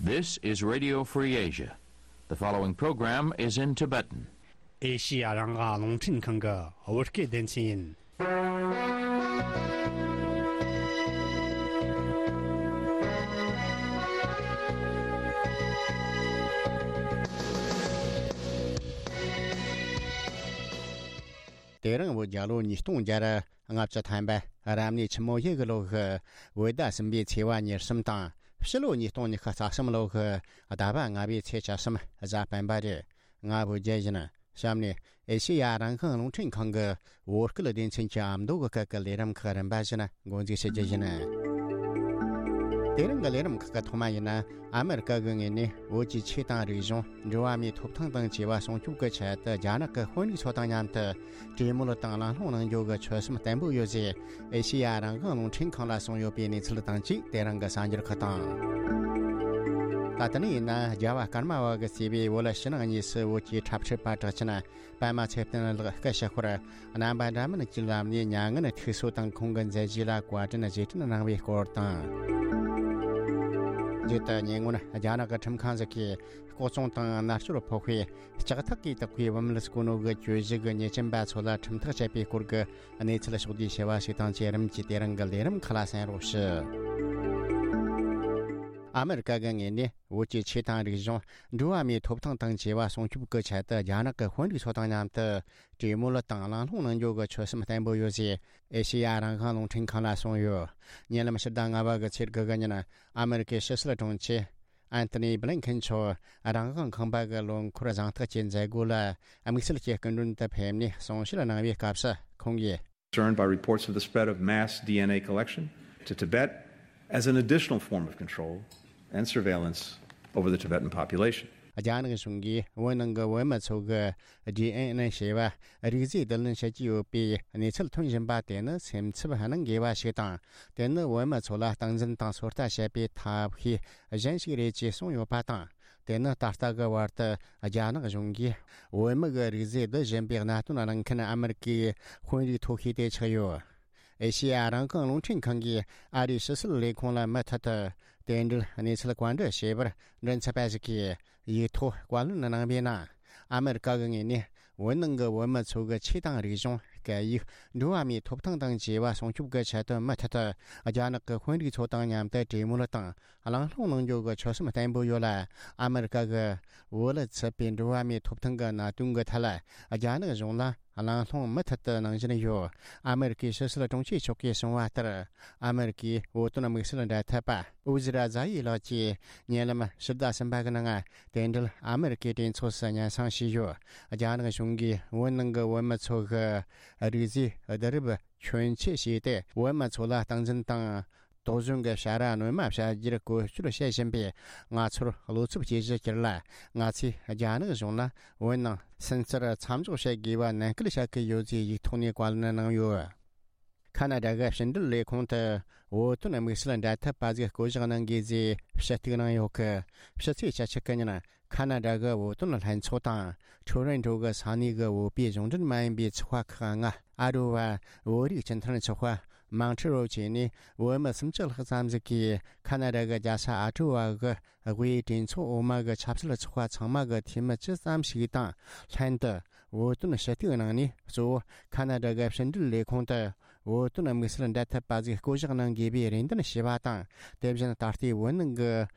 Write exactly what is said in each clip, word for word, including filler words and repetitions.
This is Radio Free Asia. The following program is in Tibetan. ཨེ་ཤི་ཡ་རང་དབང་རླུང་འཕྲིན་ཁང་གི་བོད་སྐད་སྡེ་ཚན་ཡིན། དེ་རིང་བོད་རྒྱལ་ལོ་ཉིས་སྟོང་བརྒྱ་ལྔ་བཅུ་ཐམ་པ་རབ་གནས་ཆུ་མོ་ཡོས་གི་ལོ་གི་བོད་ཟླ་གསུམ་པའི་ཚེས་པ་ཉེར་གསུམ་དང་། ཕྱི་ལོ་ཉིས་སྟོང་ཉི་ཤུ་རྩ་གསུམ་ལོ་གི་ཟླ་བ་ལྔ་པའི་ཚེས་བཅུ་གསུམ་གཟའ་སྤེན་པ་རེད། ང་བོད་རྒྱལ་ཡིན། གཤམ་ནས་ཨེ་ཤེ་ཡ་རང་དབང་རླུང་འཕྲིན་ཁང་གི་བོད་སྐད་སྡེ་ཚན་གྱི་ཨ་མདོ་གི་སྐད་ཀྱི་ལས་རིམ་ཁག་རིམ་པ་བཞིན་འགོ་འཛུགས་བྱེད་རྒྱུ་ཡིན། དེ་རིང་གི་ལས་རིམ་ཁག་གི་ཐོག་མ་ཡིན་ན། ཨ་མེ་རི་ཀ་གི་ངོས་ནས་བོད་ཀྱི་ཆོས་དང་རིག་གཞུང་། འགྲོ་བ་མིའི་ཐོབ་ཐང་དང་བཅས་པ་སྲུང་སྐྱོབ་ཀྱི་ཆེད་དུ་རྒྱ་ནག་གི་དཔོན་རིགས་ཚོ་དང་མཉམ་དུ་གྲོས་མོལ་དང་གླེང་སློང་གནང་རྒྱུ་གི་ཆོད་སེམས་བརྟན་པོ་ཡོད་ཅེས་ཨེ་ཤེ་ཡ་རང་དབང་རླུང་འཕྲིན་ཁང་ལ་གསུངས་ཡོད་པའི་གནས་ཚུལ་དང་བཅས། དེ་རིང་གི་གསར་འགྱུར་ཁག་དང་། ད་ལྟ་ནས་ཡིན་ན། རྒྱལ་བ་ཀརྨ་པ་གིས་གཙོས་པའི་བོད་ཕྱི་ནང་གཉིས་སུ་བོད་ཀྱི་འཁྲབ་ཁྲིད་པ་གྲགས་ཅན་པདྨ་ཚེ་བརྟན་ལགས་སྐུ་ཞབས་ཧོར་རྣམ་པ་འདྲ་མིན་གྱི་ལམ་ནས་མྱ་ངན་ཐུག་སོ་དང་། ཁོང་གི་མཛད་རྗེས་ལ་བཀའ་དྲིན་རྗེས་དྲན་གནང་བའི་སྐོར་དང་། མཇུག་ཏུ་ཉེ་སྔོན་རྒྱ་ནག་གི་ཁྲིམས་ཁང་ཞིག་གིས་ལྐོག་རྫོང་དང་མནར་གཅོད་ཕོག་པའི་ལྕགས་ཐག་གིས་བཏེགས་པའི་བུད་མེད་གསོ་ནོ་གི་གྱོད་གཞི་གི་ཉེས་ཅན་པ་ཚོ་ལ་ཁྲིམས་ཐག་བཅད་པའི་སྐོར་གྱི་གནས་ཚུལ་ཕྱོགས་བསྡུས་བྱས་པ་ཞིག་དང་བཅས། རིམ་གྱིས་དེ་རིང་གི་ལས་རིམ་ཁག་ལ་གསན་རོགས་ཞུ། ཨ་མེ་རི་ཀ་གི་ངོས་ནས་བོད་ཀྱི་ཆོས་དང་རིག་གཞུང་། འགྲོ་བ་མིའི་ཐོབ་ཐང་དང་བཅས་པ་སྲུང་སྐྱོབ་ཀྱི་ཆེད་དུ་རྒྱ་ནག་གི་དཔོན་རིགས་ཚོ་དང་མཉམ་དུ་གྲོས་མོལ་དང་གླེང་སློང་གནང་རྒྱུ་གི་ཆོད་སེམས་བརྟན་པོ་ཡོད་ཅེས་ཨེ་ཤེ་ཡ་རང་དབང་རླུང་འཕྲིན་ཁང་ལ་གསུངས་ཡོད། ཉེ་ལམ་ཕྱི་ཟླ་ལྔ་པ་གི་ཚེས་དགུ་གི་ཉིན། ཨ་མེ་རི་ཀའི་ཕྱི་སྲིད་དྲུང་ཆེ་ཨན་ཐོ་ནི་བྷི་ལིན་ཁེན་མཆོག་རང་དབང་ཁང་པ་གི་ལོ་འཁོར་གཟེངས་རྟགས་ཀྱི་མཛད་སྒོ་ལ་དམིགས་བསལ་གྱི་སྐུ་མགྲོན་དུ་ཕེབས་ནས་གསུང་བཤད་གནང་བའི་སྐབས་སུ། ཁོང་གིས། Concerned by reports of the spread of mass D N A collection to Tibet as an additional form of control and surveillance over the Tibetan population. རྒྱ་ནག་གཞུང་གིས་བོད་ནང་གི་བོད་མི་ཚོ་གི་ཌི་ཨེན་ཨེ་ཞེས་པ་རིགས་རྫས་བསྡུ་ལེན་བྱེད་ཀྱི་ཡོད་པའི་གནས་ཚུལ་ཐོན་བཞིན་པ་དེ་ནི་སེམས་འཚབ་གནང་དགོས་པ་ཞིག་དང་། དེ་ནི་བོད་མི་ཚོ་ལ་སྟངས་འཛིན་དང་ཚོད་ལྟ་བྱེད་པའི་ཐབས་ཤེས་གཞན་ཞིག་རེད་ཅེས་གསུངས་ཡོད་པ་དང་། དེ་ནི་ད་ལྟ་གི་བར་དུ་རྒྱ་ནག་གཞུང་གིས་བོད་མི་གི་རིགས་རྫས་བསྡུ་བཞིན་པའི་གནད་དོན་གླེང་མཁན་ཨ་མེ་རི་ཀའི་དཔོན་རིགས་མཐོ་ཤོས་དེ་ཆགས་ཡོད། ཨེ་ཤེ་ཡ་རང་དབང་རླུང་འཕྲིན་ཁང་གིས་ཨ་རིའི་ཕྱི་སྲིད་ལས་ཁུངས་ལ་མུ་མཐུད་དུ་དེ་འབྲེལ་གནས་ཚུལ་བཀའ་འདྲི་བྱས་པར། མགྲིན་ཚབ་པ་ཞིག་གིས་ཡིག་ཐོག་བཀའ་ལན་གནང་བའི་ནང་། ཨ་མེ་རི་ཀ་གི་ངོས་ནས་བོད་ནང་གི་བོད་མི་ཚོ་གི་ཆོས་དང་རིག་གཞུང་། སྐད་ཡིག་འགྲོ་བ་མིའི་ཐོབ་ཐང་དང་བཅས་པ་སྲུང་སྐྱོབ་ཀྱི་ཆེད་དུ་མུ་མཐུད་དུ་རྒྱ་ནག་གི་དཔོན་རིགས་ཚོ་དང་མཉམ་དུ་གྲོས་མོལ་དང་གླེང་སློང་གནང་རྒྱུ་གི་ཆོད་སེམས་བརྟན་པོ་ཡོད་ལ། ཨ་མེ་རི་ཀ་གི་བོད་ལ་ཚུད་པའི་འགྲོ་བ་མིའི་ཐོབ་ཐང་གི་གནད་དོན་གྱི་ཐད་ལ་རྒྱ་ནག་གཞུང་ལ་གླེང་སློང་མུ་མཐུད་དུ་གནང་བཞིན་ཡོད། ཨ་མེ་རི་ཀའི་ཕྱི་སྲིད་དྲུང་ཆེ་མཆོག་གིས་གསུངས་པ་ལྟར། ཨ་མེ་རི་ཀའི་བོད་དོན་དམིགས་བསལ་འབྲེལ་མཐུད་པ་ཨུ་ཛི་ར་ཛ་ཡི་ལགས་ཀྱིས་ཉེ་ལམ་ཕྱི་ཟླ་གསུམ་པ་གི་ནང་དེ་འབྲེལ་ཨ་མེ་རི་ཀའི་གྲོས་ཚོགས་སུ་སྙན་སེང་ཞུས་ཡོད། རྒྱ་ནག་གཞུང་གིས་བོད་ནང་གི་བོད་མི་ཚོ་གི་རིགས་རྫས་བསྡུ་རུབ་ཁྱོན་ཆེ་བྱས་ཏེ། བོད་མི་ཚོ་ལ་སྟངས་འཛིན་དང་། དོགས་ཟོན་གྱི་བྱ་ར་སྣོན་མ་བྱ་རྒྱུར་བཀོལ་སྤྱོད་བྱེད་བཞིན་པའི་ང་ཚོར་བློ་འཚབ་སྐྱེ་གཞི་གྱུར་ལ། ང་ཚོས་རྒྱ་ནག་གཞུང་ལ་བོད་ནང་སུན་གཙེར་མཚམས་འཇོག་བྱེད་དགོས་པ་ནན་སྐུལ་བྱ་གི་ཡོད་ཅེས་ཡིག་ཐོག་ནས་བཀའ་ལན་གནང་ཡོད། ཁ་ན་ཌ་གི་ཕྱི་འབྲེལ་ལས་ཁུངས་དུ་བོད་དོན་དམིགས་བསལ་འབྲེལ་མཐུད་པ་ཟིག་བསྐོ་གཞག་གནང་དགོས་ཅེས་ཞུ་གཏུག་གནང་ཡོད་གི། ཕྱི་ཚེས་བཅུ་གཅིག་གི་ཉིན། ཁ་ན་ཌ་གི་བོད་དོན་ལྷན་ཚོགས་དང་ཁྲོ་རོན་ཀྲོ་གི་ས་གནས་གི་བོད་པའི་གཞུང་འབྲེལ་མ་ཡིན་པའི་ཚོགས་པ་ཁག་ལྔ། ཨ་རོ་བ། བོད་རིགས་སྤྱི་མཐུན་ཚོགས་པ། མང་ཁྲི་རོ་བཅས་ནས་བོད་མི་སུམ་ཅུ་ལྷག་ཙམ་ཞིག་གིས་ཁ་ན་ཌ་གི་རྒྱལ་ས་ཨ་ཀྲོ་བ་གི་དབུས་གྲོས་ཚོགས་འོག་མ་གི་ཆབ་སྲིད་ཚོགས་པ་ཚང་མ་གི་འཐུས་མི་ཅི་ཙམ་ཞིག་དང་ལྷན་དུ། བོད་དོན་ཞུ་གཏུག་གནང་ནས། གཙོ་བོ་ཁ་ན་ཌ་གི་ཕྱི་འབྲེལ་ལས་ཁུངས་དུ་བོད་དོན་དམིགས་བསལ་འབྲེལ་མཐུད་པ་ཟིག་བསྐོ་གཞག་གནང་དགོས་པའི་རེ་འདུན་ཞུས་པ་དང་། དེ་བཞིན་ད་ལྟའི་བོད་ནང་གི་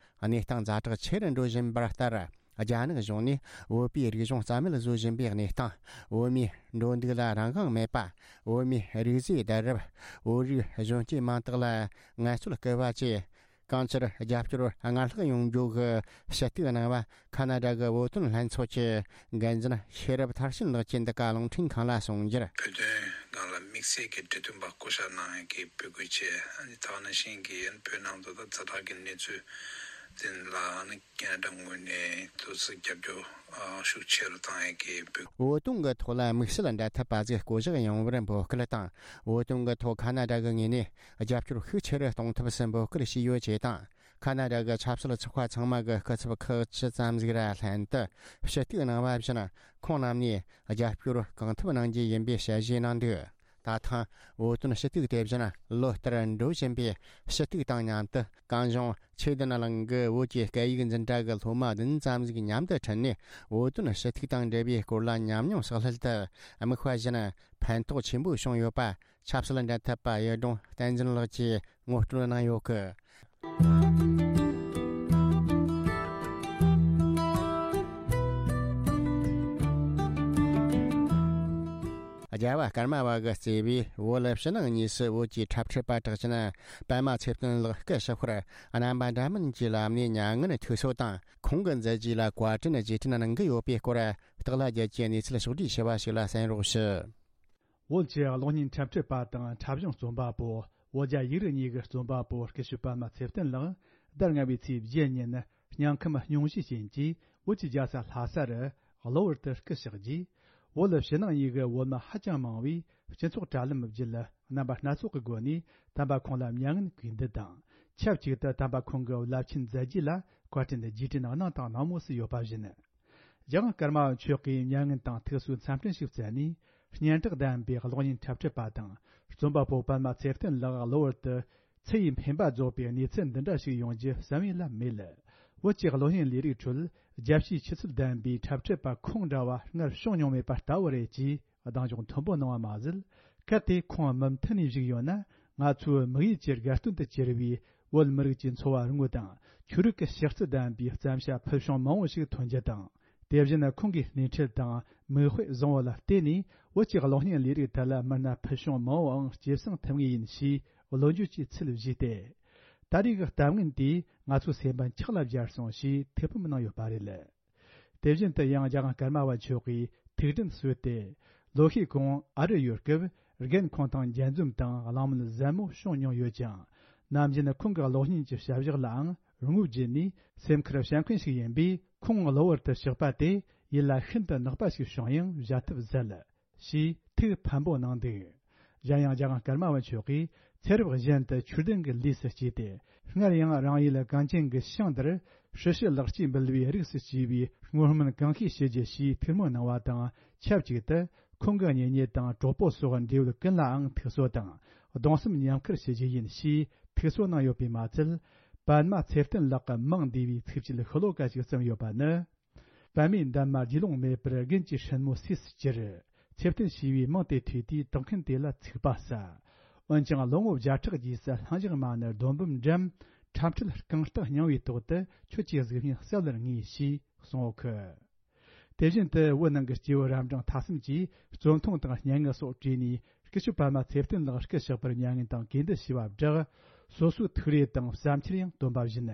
གནས་སྟངས་ཛ་དྲག་ཆེ་རུ་འགྲོ་བཞིན་པར་ལྟར། རྒྱ་ནག་གཞུང་ནས་བོད་པའི་རིག་གཞུང་རྩ་མེད་བཟོ་བཞིན་པའི་གནས་སྟངས། བོད་མིའི་འགྲོ་འདུག་ལ་རང་དབང་མེད་པ། བོད་མིའི་རིགས་རྫས་བསྡུ་རུབ། བོད་རིགས་གཞོན་སྐྱེས་མང་དག་ལ་ངལ་རྩོལ་སྐུལ་བ་བཅས། གང་ཅིར་རྒྱབ་སྐྱོར་སྔར་ལྷག་ཡོང་རྒྱུ་གི་ཞུ་གཏུག་གནང་བ། ཁ་ན་ཌ་གི་བོད་དོན་ལྷན་ཚོགས་ཀྱི་འགན་འཛིན་ཤེས་རབ་མཐར་ཕྱིན་ལགས་ཀྱིས་འདི་ག་རླུང་འཕྲིན་ཁང་ལ་གསུངས་རྒྱུར། བོད་དོན་སྒང་ལ་དམིགས་བསལ་གྱི་གྲོས་མཐུན་པ་བསྐོ་བཞག་གནང་ཡས་ཀྱི་འབོད་སྐུལ་བྱས། ཨ་ནི་ད་ག་ནང་བཞིན་གྱི་བོད་ནང་དུ་ད་ཛ་དྲག་གི་གནས་ཚུལ་དེ་ལ་ཨ་ནི་ཁ་ན་ཌ་ངོས་ནས་ཏོག་ཙམ་རྒྱབ་སྐྱོར་ཨ་ཤུགས་ཆེ་རུ་བཏང་ཡས་ཀྱི་འབོད། བོད་དོན་གྱི་ཐོག་ལ་དམིགས་བསལ་འབྲེལ་མཐུད་པ་ཟིག་བསྐོ་གཞག་ཡོང་བར་འབོད་སྐུལ་དང་། བོད་དོན་གྱི་ཐོག་ཁ་ན་ཌ་གི་ངོས་ནས་རྒྱབ་སྐྱོར་ཤུགས་ཆེ་རུ་གཏོང་ཐབས་སུ་འབོད་སྐུལ་བྱས་ཡོད་ཅེས་དང་། ཁ་ན་ཌ་གི་ཆབ་སྲིད་ཚོགས་པ་ཚང་མ་གི་སྐུ་ཚབ་ཁག་ཅི་ཙམ་ཟིག་ར་ལྷན་དུ་ཞུ་གཏུག་གནང་བ་བཞིན། ཁོང་རྣམས་ནས་རྒྱབ་སྐྱོར་གང་ཐུབ་གནང་རྒྱུ་ཡིན་པའི་ཞལ་བཞེས་གནང་འདུག། ད་ཐེངས་བོད་དོན་ཞུ་གཏུག་དེ་བཞིན་ལོ་ལྟར་འགྲོ་བཞིན་པའི་ཞུ་གཏུག་དང་མཉམ་དུ། གངས་ལྗོངས་ཆོས་ལྡན་གླིང་གི་བོད་ཀྱི་སྐད་ཡིག་འཛིན་གྲྭ་གི་སློབ་མ་བདུན་ཙམ་ཞིག་མཉམ་དུ་ཁྲིད་ནས། བོད་དོན་ཞུ་གཏུག་དང་འབྲེལ་བའི་སྐོར་ལ་ཉམས་མྱོང་བསགས་སླད་དུ། དམིགས་པ་བཞིན་ཕན་ཐོགས་ཆེན་པོ་བྱུང་ཡོད་པ། ཆབ་སྲིད་འབྲེལ་མཐུད་པ་གཡུ་སྒྲོན་བསྟན་འཛིན་ལགས་ཀྱིས་ངོ་སྤྲོད་གནང་ཡོད་གི། རྒྱལ་བ་ཀརྨ་པ་གིས་གཙོས་པའི་བོད་ཕྱི་ནང་གཉིས་སུ་བོད་ཀྱི་འཁྲབ་ཁྲིད་པ་གྲགས་ཅན་པདྨ་ཚེ་བརྟན་ལགས་སྐུ་ཞབས་ཁར་རྣམ་པ་འདྲ་མིན་གྱི་ལམ་ནས་མྱ་ངན་ཐུགས་གསོ་དང་། ཁོང་གི་མཛད་རྗེས་ལ་བཀའ་དྲིན་རྗེས་དྲན་གནང་གི་ཡོད་པའི་སྐོར། སྟག་ལྷ་རྒྱལ་གྱི་གནས་ཚུལ་ཕྱོགས་བསྒྲིགས་ཞུ་བ་ཞིག་ལ་གསན་རོགས་ཞུ། བོད་ཀྱི་གློག་བརྙན་འཁྲབ་ཁྲིད་པ་དང་འཁྲབ་གཞུང་རྩོམ་པ་པོ། བོད་རྒྱ་ཡིག་རིགས་གཉིས་ཀྱི་རྩོམ་པ་པོ་སྐུ་ཞབས་པདྨ་ཚེ་བརྟན་ལགས་ཟླ་ལྔ་པའི་ཚེས་བརྒྱད་ཉིན་སྙིང་ཁམས་སྙུང་གཞིའི་རྐྱེན་གྱིས་བོད་ཀྱི་རྒྱལ་ས་ལྷ་ས་རུ་གློ་བུར་དུ་སྐུ་གཤེགས་རྗེས། བོད་ཕྱི་ནང་གཉིས་ཀྱི་བོད་མི་ཧ་ཅང་མང་བས་སྤྱི་ཚོགས་དྲ་ལམ་བརྒྱུད་རྣམ་པ་སྣ་ཚོགས་ཀྱི་སྒོ་ནས་དམ་པ་ཁོང་ལ་མྱ་ངན་གུས་འདུད་དང་། ཆབས་ཅིག་ཏུ་དམ་པ་ཁོང་གི་རླབས་ཆེན་མཛད་རྗེས་ལ་བཀའ་དྲིན་རྗེས་དྲན་གནང་དང་གནང་མུས་སུ་ཡོད་པ་བཞིན། རྒྱལ་དབང་ཀརྨ་པ་མཆོག་གིས་མྱ་ངན་དང་ཐུགས་གསོའི་འཚམས་འཕྲིན་ཞིག་བསྩལ་ནས། སྙན་གྲགས་ལྡན་པའི་གློག་བརྙན་འཁྲབ་ཁྲིད་པ་དང་རྩོམ་པ་པོ་པདྨ་ཚེ་བརྟན་ལགས་གློ་བུར་དུ་ཚེ་ཡི་འཕེན་པ་རྫོགས་པའི་གནས་ཚུལ་འདི་འདྲ་ཞིག་ཡོང་རྒྱུ་བསམ་ཡུལ་ལ་མེད། བོད་ཀྱི་གློག་བརྙན་ལས་རིགས་ཁྲོད་རྒྱལ་སྤྱིའི་ཆུ་ཚད་ལྡན་པའི་འཁྲབ་ཁྲིད་པ་ཁོང་འདྲ་བ་སྔར་བྱུང་མྱོང་མེད་པ་ལྟ་བུ་རེད་ཅེས་གདེང་འཇོག་མཐོན་པོ་གནང་བ་མ་ཟད། གལ་ཏེ་ཁོང་མུ་མཐུད་ནས་བཞུགས་ཡོད་ན། ང་ཚོའི་དམིགས་ཡུལ་གྱི་དགའ་སྟོན་དུ་གྱུར་བའི་བོད་མི་རིགས་ཀྱི་འཚོ་བ་དངོས་དང་ཆོས་རིག་གི་གཤིས་རྩལ་ལྡན་པའི་བརྩམས་བྱ་ཕུལ་བྱུང་མང་བོ་ཞིག་ཐོན་རྒྱུ་དང་། དེ་བཞིན་ཁོང་གི་སྣེ་ཁྲིད་དང་མིག་དཔེ་བཟང་བོ་ལ་བརྟེན་ནས་བོད་ཀྱི་གློག་བརྙན་ལས་རིགས་ཐད་ལ་མི་སྣ་ཕུལ་བྱུང་མང་བོའང་སྐྱེད་སྲིང་ཐུབ་ངེས་ཡིན་ཞེས་བློ་འགྱོད་ཀྱི་ཚུལ་བཞེས་ཏེ། ད་རེས་ཀྱི་གཏམ་ངན་དེས་ང་ཚོའི་སེམས་པ་འཁྱག་ལ་སྦྱར་སོང་ཞེས་ཐུགས་ཕམ་གནང་ཡོད་པ་རེད། དེ་བཞིན་དུ་ཡང་རྒྱལ་དབང་ཀརྨ་པ་མཆོག་གིས་ཐུགས་དྲན་གསོས་ཏེ། ལོ་ཤས་གོང་ཨ་རི་ཡོད་སྐབས་རྒན་ཁོང་དང་མཇལ་འཛོམས་དང་གླེང་མོལ་ཟབ་མོ་བྱུང་མྱོང་ཡོད་ཅིང་། ནམ་རྒྱུན་ཁོང་གི་གློག་བརྙན་གྱི་བྱ་བཞག་ལའང་ངོ་བརྒྱུད་ནས་སེམས་ཁུར་བྱ་མཁན་ཞིག་ཡིན་པས། ཁོང་གློ་བུར་དུ་གཤེགས་པ་དེ་ཡིད་ལ་ཤིན་ཏུ་ནག་པ་ཞིག་བྱུང་ཡང་བཞག་ཐབས་ཟད། ཞེས་ཐུགས་ཕམ་པོ་གནང་འདུག་གཞན་ཡང་རྒྱལ་དབང་ཀརྨ་པ་མཆོག་གིས་ཚེ་རབས་གཞན་དུ་ཆོས་ལྡན་གྱི་ལུས་སུ་སྐྱེས་ཏེ། སྔར་ཡང་རང་ཡུལ་གངས་ཅན་གྱི་ཞིང་འདིར་སྲི་ཞུ་ལེགས་སྐྱེས་འབུལ་བའི་རིགས་སུ་སྐྱེས་པའི་བསྔོ་སྨོན་གང་ཤེས་ཞུ་རྒྱུ་ཞེས་ཐུགས་སྨོན་གནང་བ་དང་ཆབས་ཅིག་ཏུ། ཁོང་གི་གཉེན་ཉེ་དང་གྲོགས་པོ་སོགས་འབྲེལ་ཡོད་ཀུན་ལའང་ཐུགས་གསོ་དང་གདུང་སེམས་མཉམ་འཁུར་ཞུ་རྒྱུ་ཡིན་ཞེས་ཐུགས་གསོ་གནང་ཡོད་པས་མ་ཚད། པདྨ་ཚེ་བརྟན་ལགས་ཀྱི་མིང་འདུས་པའི་ཚིགས་བཅད་ཤོ་ལོ་ཀ་ཞིག་བརྩམས་ཡོད་པ་ནི། པདྨའི་འདབ་མ་རྒྱུད་ལོང་མེད་པར་རྒན་གྱི་སྲིན་མོ་སུས་སུ་གྱུར། ཚེ་བརྟན་ཞེས་པའི་མིང་དེ་ཐོས་དུས་དོགས་མཁན་དེ་ལ་ཚིག་པ་ཟ། འོན་ཀྱང་ལོ་ངོ་བརྒྱ་ཕྲག་རྗེས་སུ་ལྷིང་འཇགས་མ་ཎི་རྡོ་འབུམ་འགྲམ། འཁྲབ་ཁྲིད་རྐང་རྟགས་རྙིང་བའི་ཐོག་ཏུ་ཁྱོད་ཀྱི་གཟུགས་བརྙན་གསལ་ལེར་ངེས་ཞེས་གསུངས་ཡོད་ཁུ། དེ་བཞིན་དུ་བོད་ནང་གི་སྐྱེས་བུ་རབ་འབྲིང་ཐ་གསུམ་གྱིས་རྩོམ་ཐུང་དང་སྙན་ངག་སོགས་བྲིས་ནས་སྐུ་ཞབས་པདྨ་ཚེ་བརྟན་ལགས་སྐུ་གཤེགས་པར་མྱ་ངན་དང་གུས་འདུད་ཞུ་བ་བསྒྲགས། སོ་སོའི་ཐུགས་རེ་དང་བསམ་འཆར་ཡང་བཏོན་པ་བཞིན།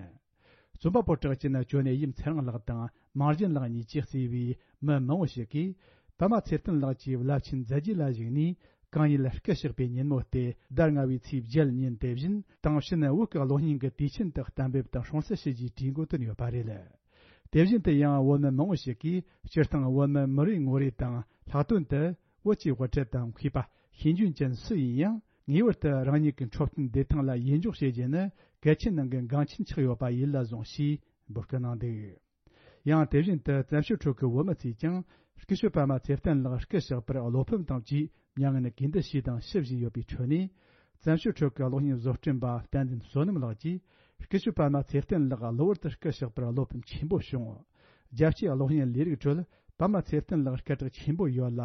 རྩོམ་པ་པོ་གྲགས་ཅན་ཇོ་ནེ་ཡིམ་ཚེ་རིང་ལགས་དང་མང་གཞན་ལགས་གཉིས་ཀྱིས་གཙོས་པའི་མི་མང་བོ་ཞིག་གིས། པདྨ་ཚེ་བརྟན་ལགས་ཀྱི་རླབས་ཆེན་མཛད་རྗེས་ལ་གཞིགས་ནས། གང་ཉིད་སྐུ་གཤེགས་པའི་ཉིན་མོ་སྟེ་ཟླ་ལྔ་བའི་ཚེས་བརྒྱད་ཉིན་དེ་བཞིན་དེང་ཕྱིན་བོད་ཀྱི་གློག་བརྙན་གྱི་དུས་ཆེན་དུ་གཏན་འབེབས་དང་སྲུང་བརྩི་ཞུ་རྒྱུའི་གྲོས་འགོ་བཏོན་ཡོད་པ་རེད། དེ་བཞིན་དུ་ཡང་བོད་མི་མང་བོ་ཞིག་གིས་སྤྱིར་བཏང་བོད་མི་མི་རེ་ངོ་རེ་དང་ལྷག་དོན་དུ་བོད་ཀྱི་དབུ་ཁྲིད་དང་མཁས་པ་ཤེས་འཇོན་ཅན་སུ་ཡིན་ཡང་ངེས་པར་དུ་རང་ཉིད་ཀྱི་འཁྲབ་སྟོན་བདེ་ཐང་ལ་ཡིད་འཇོག་བྱེད་རྒྱུ་ནི་གལ་ཆེན་ནང་གི་འགངས་ཆེན་ཆགས་ཡོད་པ་ཡིད་ལ་བཟུང་ཞེས་འབོད་སྐུལ་གནང་འདུག་ཡང་དེ་བཞིན་དུ་བཙན་བྱོལ་ཁྲོད་ཀྱི་བོད་མི་ཚོས་ཀྱང་སྐུ་ཞབས་པདྨ་ཚེ་བརྟན་ལགས་སྐུ་གཤེགས་པར་བློ་ཕམ་དང་བཅས་མྱ་ངན་གུས་འདུད་ཞུས་དང་ཞུ་བཞིན་ཡོད་པའི་ཁྲོད་ནས། བཙན་བྱོལ་ཁྲོད་ཀྱི་གློག་བརྙན་བཟོ་སྐྲུན་པ་བསྟན་འཛིན་བསོད་ནམས་ལགས་ཀྱིས་སྐུ་ཞབས་པདྨ་ཚེ་བརྟན་ལགས་གློ་བུར་དུ་སྐུ་གཤེགས་པར་བློ་ཕམ་ཆེན་པོ་བྱུང་། རྒྱལ་སྤྱིའི་གློག་བརྙན་ལས་རིགས་ཁྲོད་པདྨ་ཚེ་བརྟན་ལགས་སྐད་གྲགས་ཆེན་པོ་ཡོད་ལ།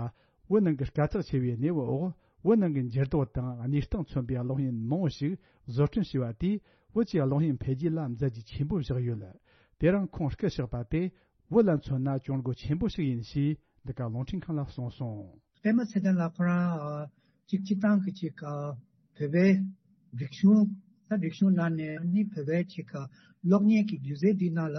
བོད་ནང་གི་དཀའ་ཚེགས་ཆེ་བའི་གནས་བབ་འོག་བོད་ནང་གི་འགྱུར་ལྡོག་དང་གནས་སྟངས་མཚོན་པའི་གློག་བརྙན་མང་བོ་ཞིག་བཟོ་སྐྲུན་བྱས་པ་དེས་བོད་ཀྱི་གློག་བརྙན་འཕེལ་རྒྱས་ལ་མཛད་རྗེས་ཆེན་པོ་བཞག་ཡོད། དེ་རིང་ཁོང་སྐུ་གཤེགས་པ་དེ་བོད་ལ་མཚོན་ན་གྱོང་གུད་ཆེན་པོ་ཞིག་ཡིན་ཞེས་འདི་ག་རླུང་འཕྲིན་ཁང་ལ་གསུངས་སོང་། པདྨ་ཚེ་བརྟན་ལགས་ཁོ་རང་ཨ་གཅིག་སྤྱིར་བཏང་གི་གཅིག་ཨ་བོད་པའི་རིག་གཞུང་ད་རིག་གཞུང་ནང་ནས་ནི་བོད་པའི་གཅིག་ཨ་གློག་བརྙན་གྱི་སྒྱུ་རྩལ་འདི་ནང་ལ་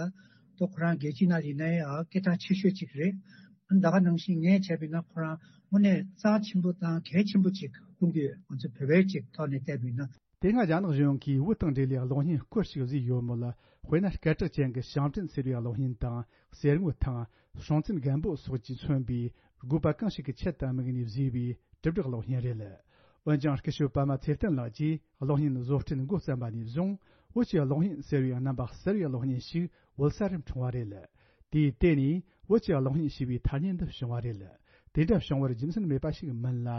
ཏོ་ཁོ་རང་རྒྱལ་སྤྱི་ནང་ཡིན་ན་ཡང་ཨ་སྐད་གྲགས་ཆེ་ཤོས་གཅིག་རེད། ད་ག་ནང་བཞིན་ངས་བྱས་པ་ཡིན་ན་ཁོ་རང་དངོས་གནས་རྩ་ཆེན་པོ་དང་གལ་ཆེན་པོ་གཅིག་མཐོང་གི་ཡོད། ང་ཚོ་བོད་པའི་གཅིག་ཐོག་ནས་བལྟས་པ་ཡིན་ན། དེ་སྔ་རྒྱ་ནག་གཞུང་གིས་བོད་དང་འབྲེལ་བའི་གློག་བརྙན་སྐོར་ཞིག་བཟོས་ཡོད་མོད། དཔེར་ན་སྐད་གྲགས་ཅན་གྱི་ཞང་བྲན་ཟེར་བའི་གློག་བརྙན་དང་གསེར་དངུལ་ཐང་། སྲོང་བཙན་སྒམ་པོ་སོགས་ཀྱིས་མཚོན་པའི་དགོས་པ་གང་ཞིག་གི་ཆེད་དུ་དམིགས་ནས་བཟོས་པའི་དྲིལ་བསྒྲགས་གློག་བརྙན་རེད། འོན་ཀྱང་སྐུ་ཞབས་པདྨ་ཚེ་བརྟན་ལགས་ཀྱིས་གློག་བརྙན་བཟོ་སྐྲུན་འགོ་བརྩམས་པ་ནས་བཟུང་བོད་ཀྱི་གློག་བརྙན་ཟེར་བའི་རྣམ་པ་གསར་བའི་གློག་བརྙན་ཞིག་བོད་ས་རུ་འཁྲུངས་པ་རེད། དེས་བརྟེན་ནས་བོད་ཀྱི་གློག་བརྙན་ཞེས་པའི་ཐ་སྙད་འདི་བྱུང་བ་རེད། དེ་འདྲ་བྱུང་བར་རྒྱུ་མཚན་མེད་པ་ཞིག་མིན་ལ།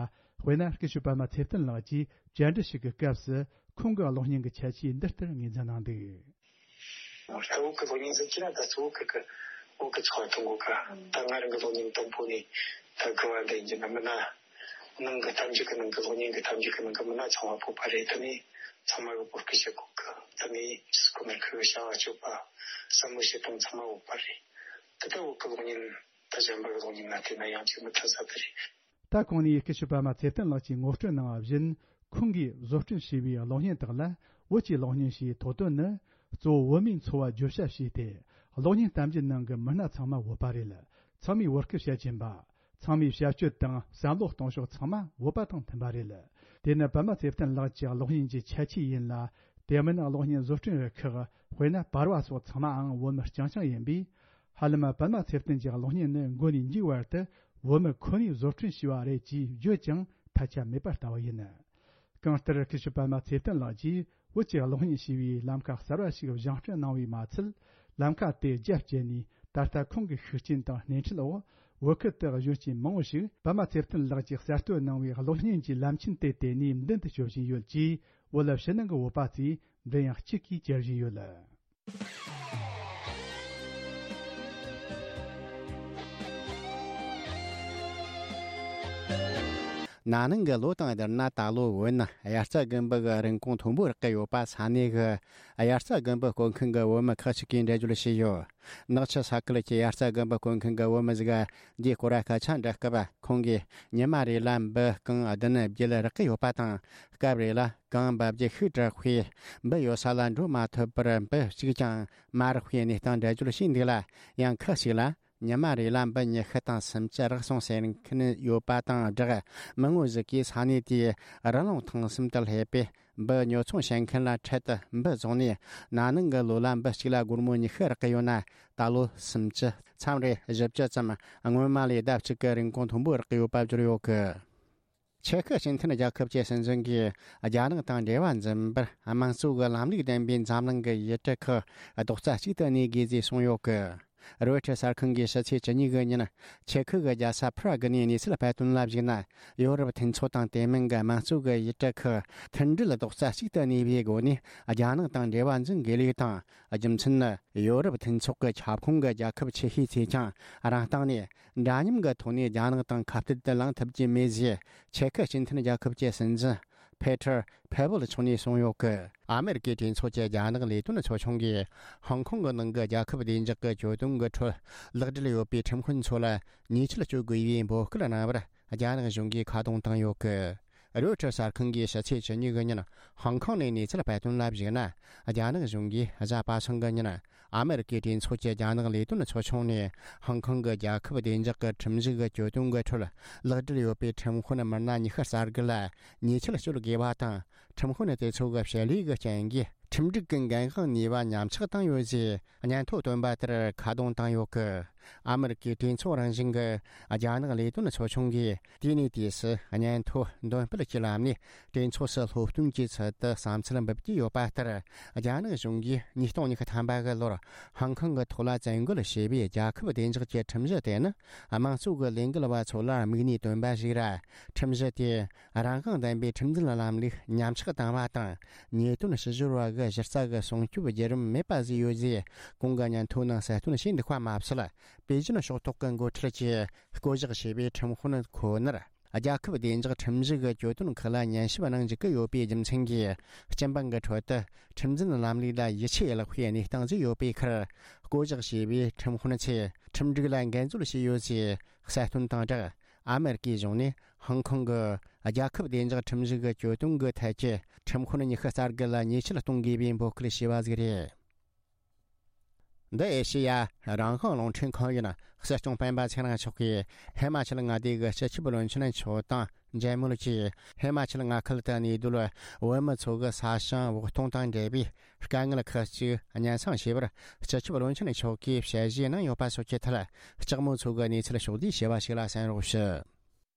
དཔེར་ན་སྐུ་ཞབས་པདྨ་ཚེ་བརྟན་ལགས་ཀྱིས་བཅར་འདྲི་ཞིག་གི་སྐབས་སུ་ཁོང་གི་གློག་བརྙན་གྱི་ཁྱད་ཆོས་འདི་ལྟར་ངོས་འཛིན་གནང་འདུག། ད་བོད་ཀྱི་གློག་བརྙན་ཟེར་གྱི་ན་ད་གཙོ་བོ་ཁུལ་གྱི་བོད་ཀྱི་ཚོགས་པ་གཏོང་གོ་ག་ད་ང་རང་གི་གློག་བརྙན་དང་པོ་ནས་ད་དགུ་བ་འདི་ཡིན་གྱི་ན་མིན་ན། ནང་གི་གཏམ་རྒྱུད་ཀྱི་ནང་གི་གློག་བརྙན་གྱི་གཏམ་རྒྱུད་ཀྱི་ནང་གི་མི་སྣ་ཚང་མ་བོད་པ་རེད། དེ་ནས་ཚང་མ་གི་བོད་སྐད་བཤད་གོ་གི། དེ་ནས་སྐུ་མར་ཁུ་བྱ་བ་སྤྱོད་པ་བསམ་བློ་བྱེད་སྟངས་ཚང་མ་བོད་པ་རེད། དེ་ལྟ་བོད་ཀྱི་གློག་བརྙན་ད་གཞན་པ་གི་གློག་བརྙན་ལ་བལྟས་ན་ཡང་ཅིག་མི་མཐུན་ས་དེ་རེད། ད་གོང་ནས་སྐུ་ཞབས་པདྨ་ཚེ་བརྟན་ལགས་ཀྱིས་ངོ་སྤྲོད་གནང་བ་བཞིན། ཁོང་གིས་བཟོ་སྐྲུན་བྱས་པའི་གློག་བརྙན་དག་ལ་བོད་ཀྱི་གློག་བརྙན་ཞེས་ཐོགས་དོན་ནི། གཙོ་བོ་བོད་མིའི་འཚོ་བ་བརྗོད་བྱ་བྱས་ཏེ། གློག་བརྙན་གཏམ་རྒྱུད་ནང་གི་མི་སྣ་ཚང་མ་བོད་པ་རེད། ཚང་མས་བོད་སྐད་བཤད་ཀྱིན་པ། ཚང་མའི་བྱ་སྤྱོད་དང་བསམ་བློ་གཏོང་ཕྱོགས་ཚང་མ་བོད་པ་དང་མཐུན་པ་རེད། དེ་ནི་པདྨ་ཚེ་བརྟན་ལགས་ཀྱི་གློག་བརྙན་གྱི་ཁྱད་ཆོས་ཡིན་ལ། དེ་མིན་གློག་བརྙན་བཟོ་སྐྲུན་རུ་ཁག་དཔེར་ན་པར་བ་སོགས་ཚང་མའང་བོད་མི་རྐྱང་རྐྱང་ཡིན་པས། ཧ་ལམ་པདྨ་ཚེ་བརྟན་གྱི་གློག་བརྙན་ནི་མགོ་ནས་མཇུག་བར་དུ་བོད་མི་ཁོ་ནས་བཟོ་སྐྲུན་བྱས་པ་རེད་ཅེས་བརྗོད་ཀྱང་ཐལ་ཆ་མེད་པ་ལྟ་བུ་ཡིན། གང་ལྟར་སྐུ་ཞབས་པདྨ་ཚེ་བརྟན་ལགས་ཀྱིས་བོད་ཀྱི་གློག་བརྙན་ཞེས་པའི་ལམ་ཁ་གསར་བ་ཞིག་བཞེངས་སྐྲུན་གནང་བས་མ་ཚད། ལམ་ཁ་དེ་རྒྱ་བསྐྱེད་ནས་ད་ལྟ་ཁོང་གི་ཤུགས་རྐྱེན་དང་སྣེ་ཁྲིད་འོག་བོད་ཁུལ་དུ་གཞོན་སྐྱེས་མང་བོ་ཞིག་པདྨ་ཚེ་བརྟན་ལགས་ཀྱིས་གསར་གཏོད་གནང་བའི་གློག་བརྙན་གྱི་ལམ་ཆེན་དེ་དེད་ནས་མདུན་དུ་སྐྱོད་བཞིན་ཡོད་ཅེས་བོད་ཕྱི་ནང་གི་བོད་པ་ཚོས་མགྲིན་དབྱངས་གཅིག་གིས་བཅར་བཞིན་ཡོད། ན་ནིང་གི་ལོ་དང་བསྡུར་ན་ད་ལོ་བོད་ནི་དབྱར་རྩྭ་དགུན་འབུ་གི་རིན་གོང་མཐོན་པོར་བརྐོས་ཡོད་པ་ས་གནས་ཀྱི་དབྱར་རྩྭ་དགུན་འབུ་བརྐོ་མཁན་གྱི་བོད་མི་ཁག་ཅིག་གིས་འགྲེལ་བརྗོད་བྱས་ཡོད། ནག་ཆུ་ས་ཁུལ་གྱི་དབྱར་རྩྭ་དགུན་འབུ་བརྐོ་མཁན་གྱི་བོད་མི་ཟིག་འདིའི་སྐོར་སྐད་ཆ་འདྲི་སྐབས། ཁོང་གིས་ཉི་མ་རེ་ལ་འབུ་རྐང་བདུན་བརྒྱད་བརྐོས་ཡོད་པ་དང་། སྐབས་རེ་ལ་རྐང་འབབ་རྒྱུ་ཤུགས་དྲག་པས་འབུ་ཡོད་ས་ལ་འགྲོ་མ་ཐུབ་པར་འབུ་གཅིག་ཀྱང་མ་རེག་པའི་གནས་སྟངས་འགྲེལ་བརྗོད་བྱས་འདུག་ལ། ཡང་ཁག་ཅིག་ལ་ཉི་མ་རེ་ལ་འབུ་ཉི་ཤུ་དང་སུམ་ཅུ་རེག་སོང་ཟེར་མཁན་ཡོད་པ་དང་སྦྲགས། མི་ངོ་ཟིག་གིས་ས་གནས་དེའི་རི་ལུང་ཐང་གསུམ་དུ་སླེབས་པས། འབུ་ཉོ་ཚོང་བྱེད་མཁན་ལ་འཕྲལ་དུ་འབུ་བཙོངས་ནས། ན་ནིང་གི་ལོ་ལ་འབུ་གཅིག་ལ་སྒོར་མོ་ཉི་ཤུ་རེག་གི་ཡོད་ན། ད་ལོ་སུམ་ཅུ། མཚམས་རེ་བཞི་བཅུ་ཙམ་སྔོན་མ་ལས་ལྡབ་གཅིག་གི་རིན་གོང་མཐོན་པོ་རེག་གི་ཡོད་པ་བརྗོད་ཡོད་གི། ཅེ་ཁི་སྤྱི་མཐུན་རྒྱལ་ཁབ་ཀྱི་སྲིད་འཛིན་གྱིས་རྒྱ་ནག་དང་འབྲེལ་བ་འཛིན་པར་དམངས་གཙོ་གི་ལམ་ལུགས་ལྡན་པའི་འཛམ་གླིང་གི་ཡུལ་གྲུ་ཁག་རྡོག་རྩ་གཅིག་ཏུ་གནས་དགོས་ཞེས་གསུངས་ཡོད་གི། རོའི་ཊར་གསར་ཁང་གིས་ཕྱི་ཚེས་བཅུ་གཉིས་གི་ཉིན་ཅེ་ཁི་གི་རྒྱལ་ས་པ་རག་ནས་གནས་ཚུལ་སྤེལ་དོན་ལ་གཞིགས་ན། ཡོ་རོབ་མཐུན་ཚོགས་དང་དེ་མིན་གྱི་དམངས་གཙོ་གི་ཡུལ་གྲུ་ཁག་མཐུན་སྒྲིལ་རྡོག་རྩ་གཅིག་ཏུ་གནས་པའི་སྒོ་ནས་རྒྱ་ནག་དང་འབྲེལ་བ་འཛིན་དགོས་ལུགས་དང་། རྒྱུ་མཚན་ནི། ཡོ་རོབ་མཐུན་ཚོགས་ཀྱི་ཁྱབ་ཁོངས་ཀྱི་རྒྱལ་ཁབ་ཆེ་ཤོས་ཚོས་ཀྱང་རང་སྟེང་ནས་འདྲ་མཉམ་གྱི་ཐོག་ནས་རྒྱ་ནག་དང་ཁ་གཏད་དུ་ལངས་ཐུབ་ཀྱི་མེད་ཅེས་ཅེ་ཁི་སྤྱི་མཐུན་རྒྱལ་ཁབ་ཀྱི་སྲིད་འཛིན་ཕེ་ཐར་ཕེ་བོལ་མཆོག་ནས་གསུངས་ཡོད་གི། ཨ་མེ་རི་ཀའི་གྲོས་ཚོགས་ཀྱི་རྒྱ་ནག་ལས་དོན་ཚོགས་ཆུང་གིས་ཧོང་ཀོང་གི་ནང་གི་རྒྱལ་ཁབ་བདེ་འཇགས་ཀྱི་གྱོད་དོན་གྱི་ཁྲོད་ལག་འབྲེལ་ཡོད་པའི་ཁྲིམས་དཔོན་ཚོ་ལ་ཉེས་ཆད་གཅོད་དགོས་པའི་འབོད་སྐུལ་གནང་བར་རྒྱ་ནག་གཞུང་གིས་ཁ་རྡུང་བཏང་ཡོད་གི། རོའི་ཊར་གསར་ཁང་གིས་ཕྱི་ཚེས་བཅུ་གཉིས་གི་ཉིན་ཧོང་ཀོང་ནས་གནས་ཚུལ་སྤེལ་དོན་ལ་གཞིགས་ན། རྒྱ་ནག་གཞུང་གིས་གཟའ་པ་སངས་གི་ཉིན་ཨ་མེ་རི་ཀའི་གྲོས་ཚོགས་ཀྱི་རྒྱ་ནག་ལས་དོན་ཚོགས་ཆུང་ནས་ཧོང་ཀོང་གི་རྒྱལ་ཁབ་བདེ་འཇགས་ཀྱི་ཁྲིམས་གཞི་གི་གྱོད་དོན་གྱི་ཁྲོད་ལག་འབྲེལ་ཡོད་པའི་ཁྲིམས་དཔོན་མི་སྣ་ཉི་ཤུ་རྩ་དགུ་ལ་ཉེས་ཆད་གཅོད་དགོས་པ་དང་། ཁྲིམས་དཔོན་དེ་ཚོ་གི་བྱེད་ལས་ཀྱི་རྐྱེན་གྱིས་ཁྲིམས་སྒྲིག་གི་འགན་དབང་ནུས་པ་ཉམས་ཆག་བཏང་ཡོད་ཅེས་སྙན་ཐོ་བཏོན་པ་ལྟར་ཁ་རྡུང་བཏང་ཡོད་གི། ཨ་མེ་རི་ཀའི་གྲོས་ཚོགས་རང་བཞིན་གྱི་རྒྱ་ནག་ལས་དོན་ཚོགས་ཆུང་གིས་དུས་ནས་དུས་སུ་སྙན་ཐོ་འདོན་སྤེལ་གྱི་ལམ་ནས་གྲོས་ཚོགས་སུ་སློབ་སྟོན་གྱི་ཚུལ་དུ་བསམ་ཚུལ་འབུལ་གྱི་ཡོད་པ་ལྟར། རྒྱ་ནག་གཞུང་གིས་ཉིས་སྟོང་ཉི་ཤུ་ཐམ་པ་གི་ལོར་ཧོང་ཀོང་གི་ཐོག་ལ་བཙན་རྒོལ་བྱས་པའི་རྒྱལ་ཁབ་བདེ་འཇགས་ཀྱི་ཁྲིམས་གཞི་དེ་ནི་དམངས་གཙོ་གི་ལས་འགུལ་བ་ཚོ་ལ་དམིགས་ནས་བཏོན་པ་ཞིག་ར། ཁྲིམས་གཞི་དེ་རང་དབང་ལྡན་པའི་ཁྲིམས་འཛིན་ལམ་ལུགས་ཉམས་ཆག་བཏང་བ་དང་། ཉེས་དོན་ཕྱི་བཤོལ་བ་གི་གཞི་རྩ་གི་སྲུང་སྐྱོབ་བརྒྱུད་རིམ་མེད་པ་བཟོས་ཡོད་ཅེས་གོང་གི་སྙན་ཐོ་ནང་གསལ་སྟོན་བྱས་འདུག་པ་མ་ཟད། པེ་ཅིན་ཕྱོགས་གཏོགས་ཀྱི་འགོ་ཁྲིད་ཀྱིས་བསྐོ་གཞག་བྱས་པའི་ཁྲིམས་དཔོན་ཁོ་ནར། རྒྱལ་ཁབ་བདེ་འཇགས་ཁྲིམས་གཞི་གི་གྱོད་དོན་ཁག་ལ་ཉན་ཞིབ་གནང་འཇུག་གི་ཡོད་པའི་རྒྱུ་མཚན་གྱིས། སྤྱི་འབངས་ཀྱི་ཁྲོད་དུ་ཁྲིམས་འཛིན་ལམ་ལུགས་ལ་ཡིད་ཆེས་བརླག་པའི་གནས་སྟངས་ཤིག་ཡོད་པའི་ཁར། བསྐོ་གཞག་བྱས་པའི་ཁྲིམས་དཔོན་ཚོས་ཁྲིམས་སྒྲིག་ལ་འགལ་འཛོལ་བྱས་ཡོད་ཅེས་གསལ་སྟོན་དང་སྦྲགས། ཨ་མེ་རི་ཀའི་གཞུང་ནས་ཧོང་ཀོང་གི་རྒྱལ་ཁབ་བདེ་འཇགས་ཁྲིམས་གཞི་གི་གྱོད་དོན་གྱི་ཐད་ཀྱི་ཁྲིམས་དཔོན་ཉི་ཤུ་རྩ་དགུ་ལ་ཉེས་ཆད་གཏོང་དགོས་པའི་འབོད་སྐུལ་བྱས་པ་ཟིག་རེད། འདི་ཨེ་ཤེ་ཡ་རང་དབང་རླུང་འཕྲིན་ཁང་ཡིན། སྲིད་སྐྱོང་སྤེན་པ་ཚེ་རིང་མཆོག་གིས་ཧི་མ་ཅལ་མངའ་སྡེ་གི་སྤྱི་ཁྱབ་བློན་ཆེན་མཆོག་དང་མཇལ་མོལ་གྱིས། ཧི་མ་ཅལ་མངའ་ཁུལ་དུ་གནས་སྡོད་བོད་མི་ཚོ་གི་ས་ཞིང་འོག་གཏོང་དང་འབྲེལ་བའི་དཀའ་ངལ་ཁག་ཅིག་སྙན་སེང་བྱས་པར། སྤྱི་ཁྱབ་བློན་ཆེན་མཆོག་གིས་ཞལ་བཞེས་གནང་ཡོད་པ་སོགས་ཀྱི་ཐད་ལྕགས་མོ་མཚོ་གི་གནས་ཚུལ་ཕྱོགས་བསྡུས་བྱས་པ་ཞིག་ལ་གསན་རོགས་ཞུ།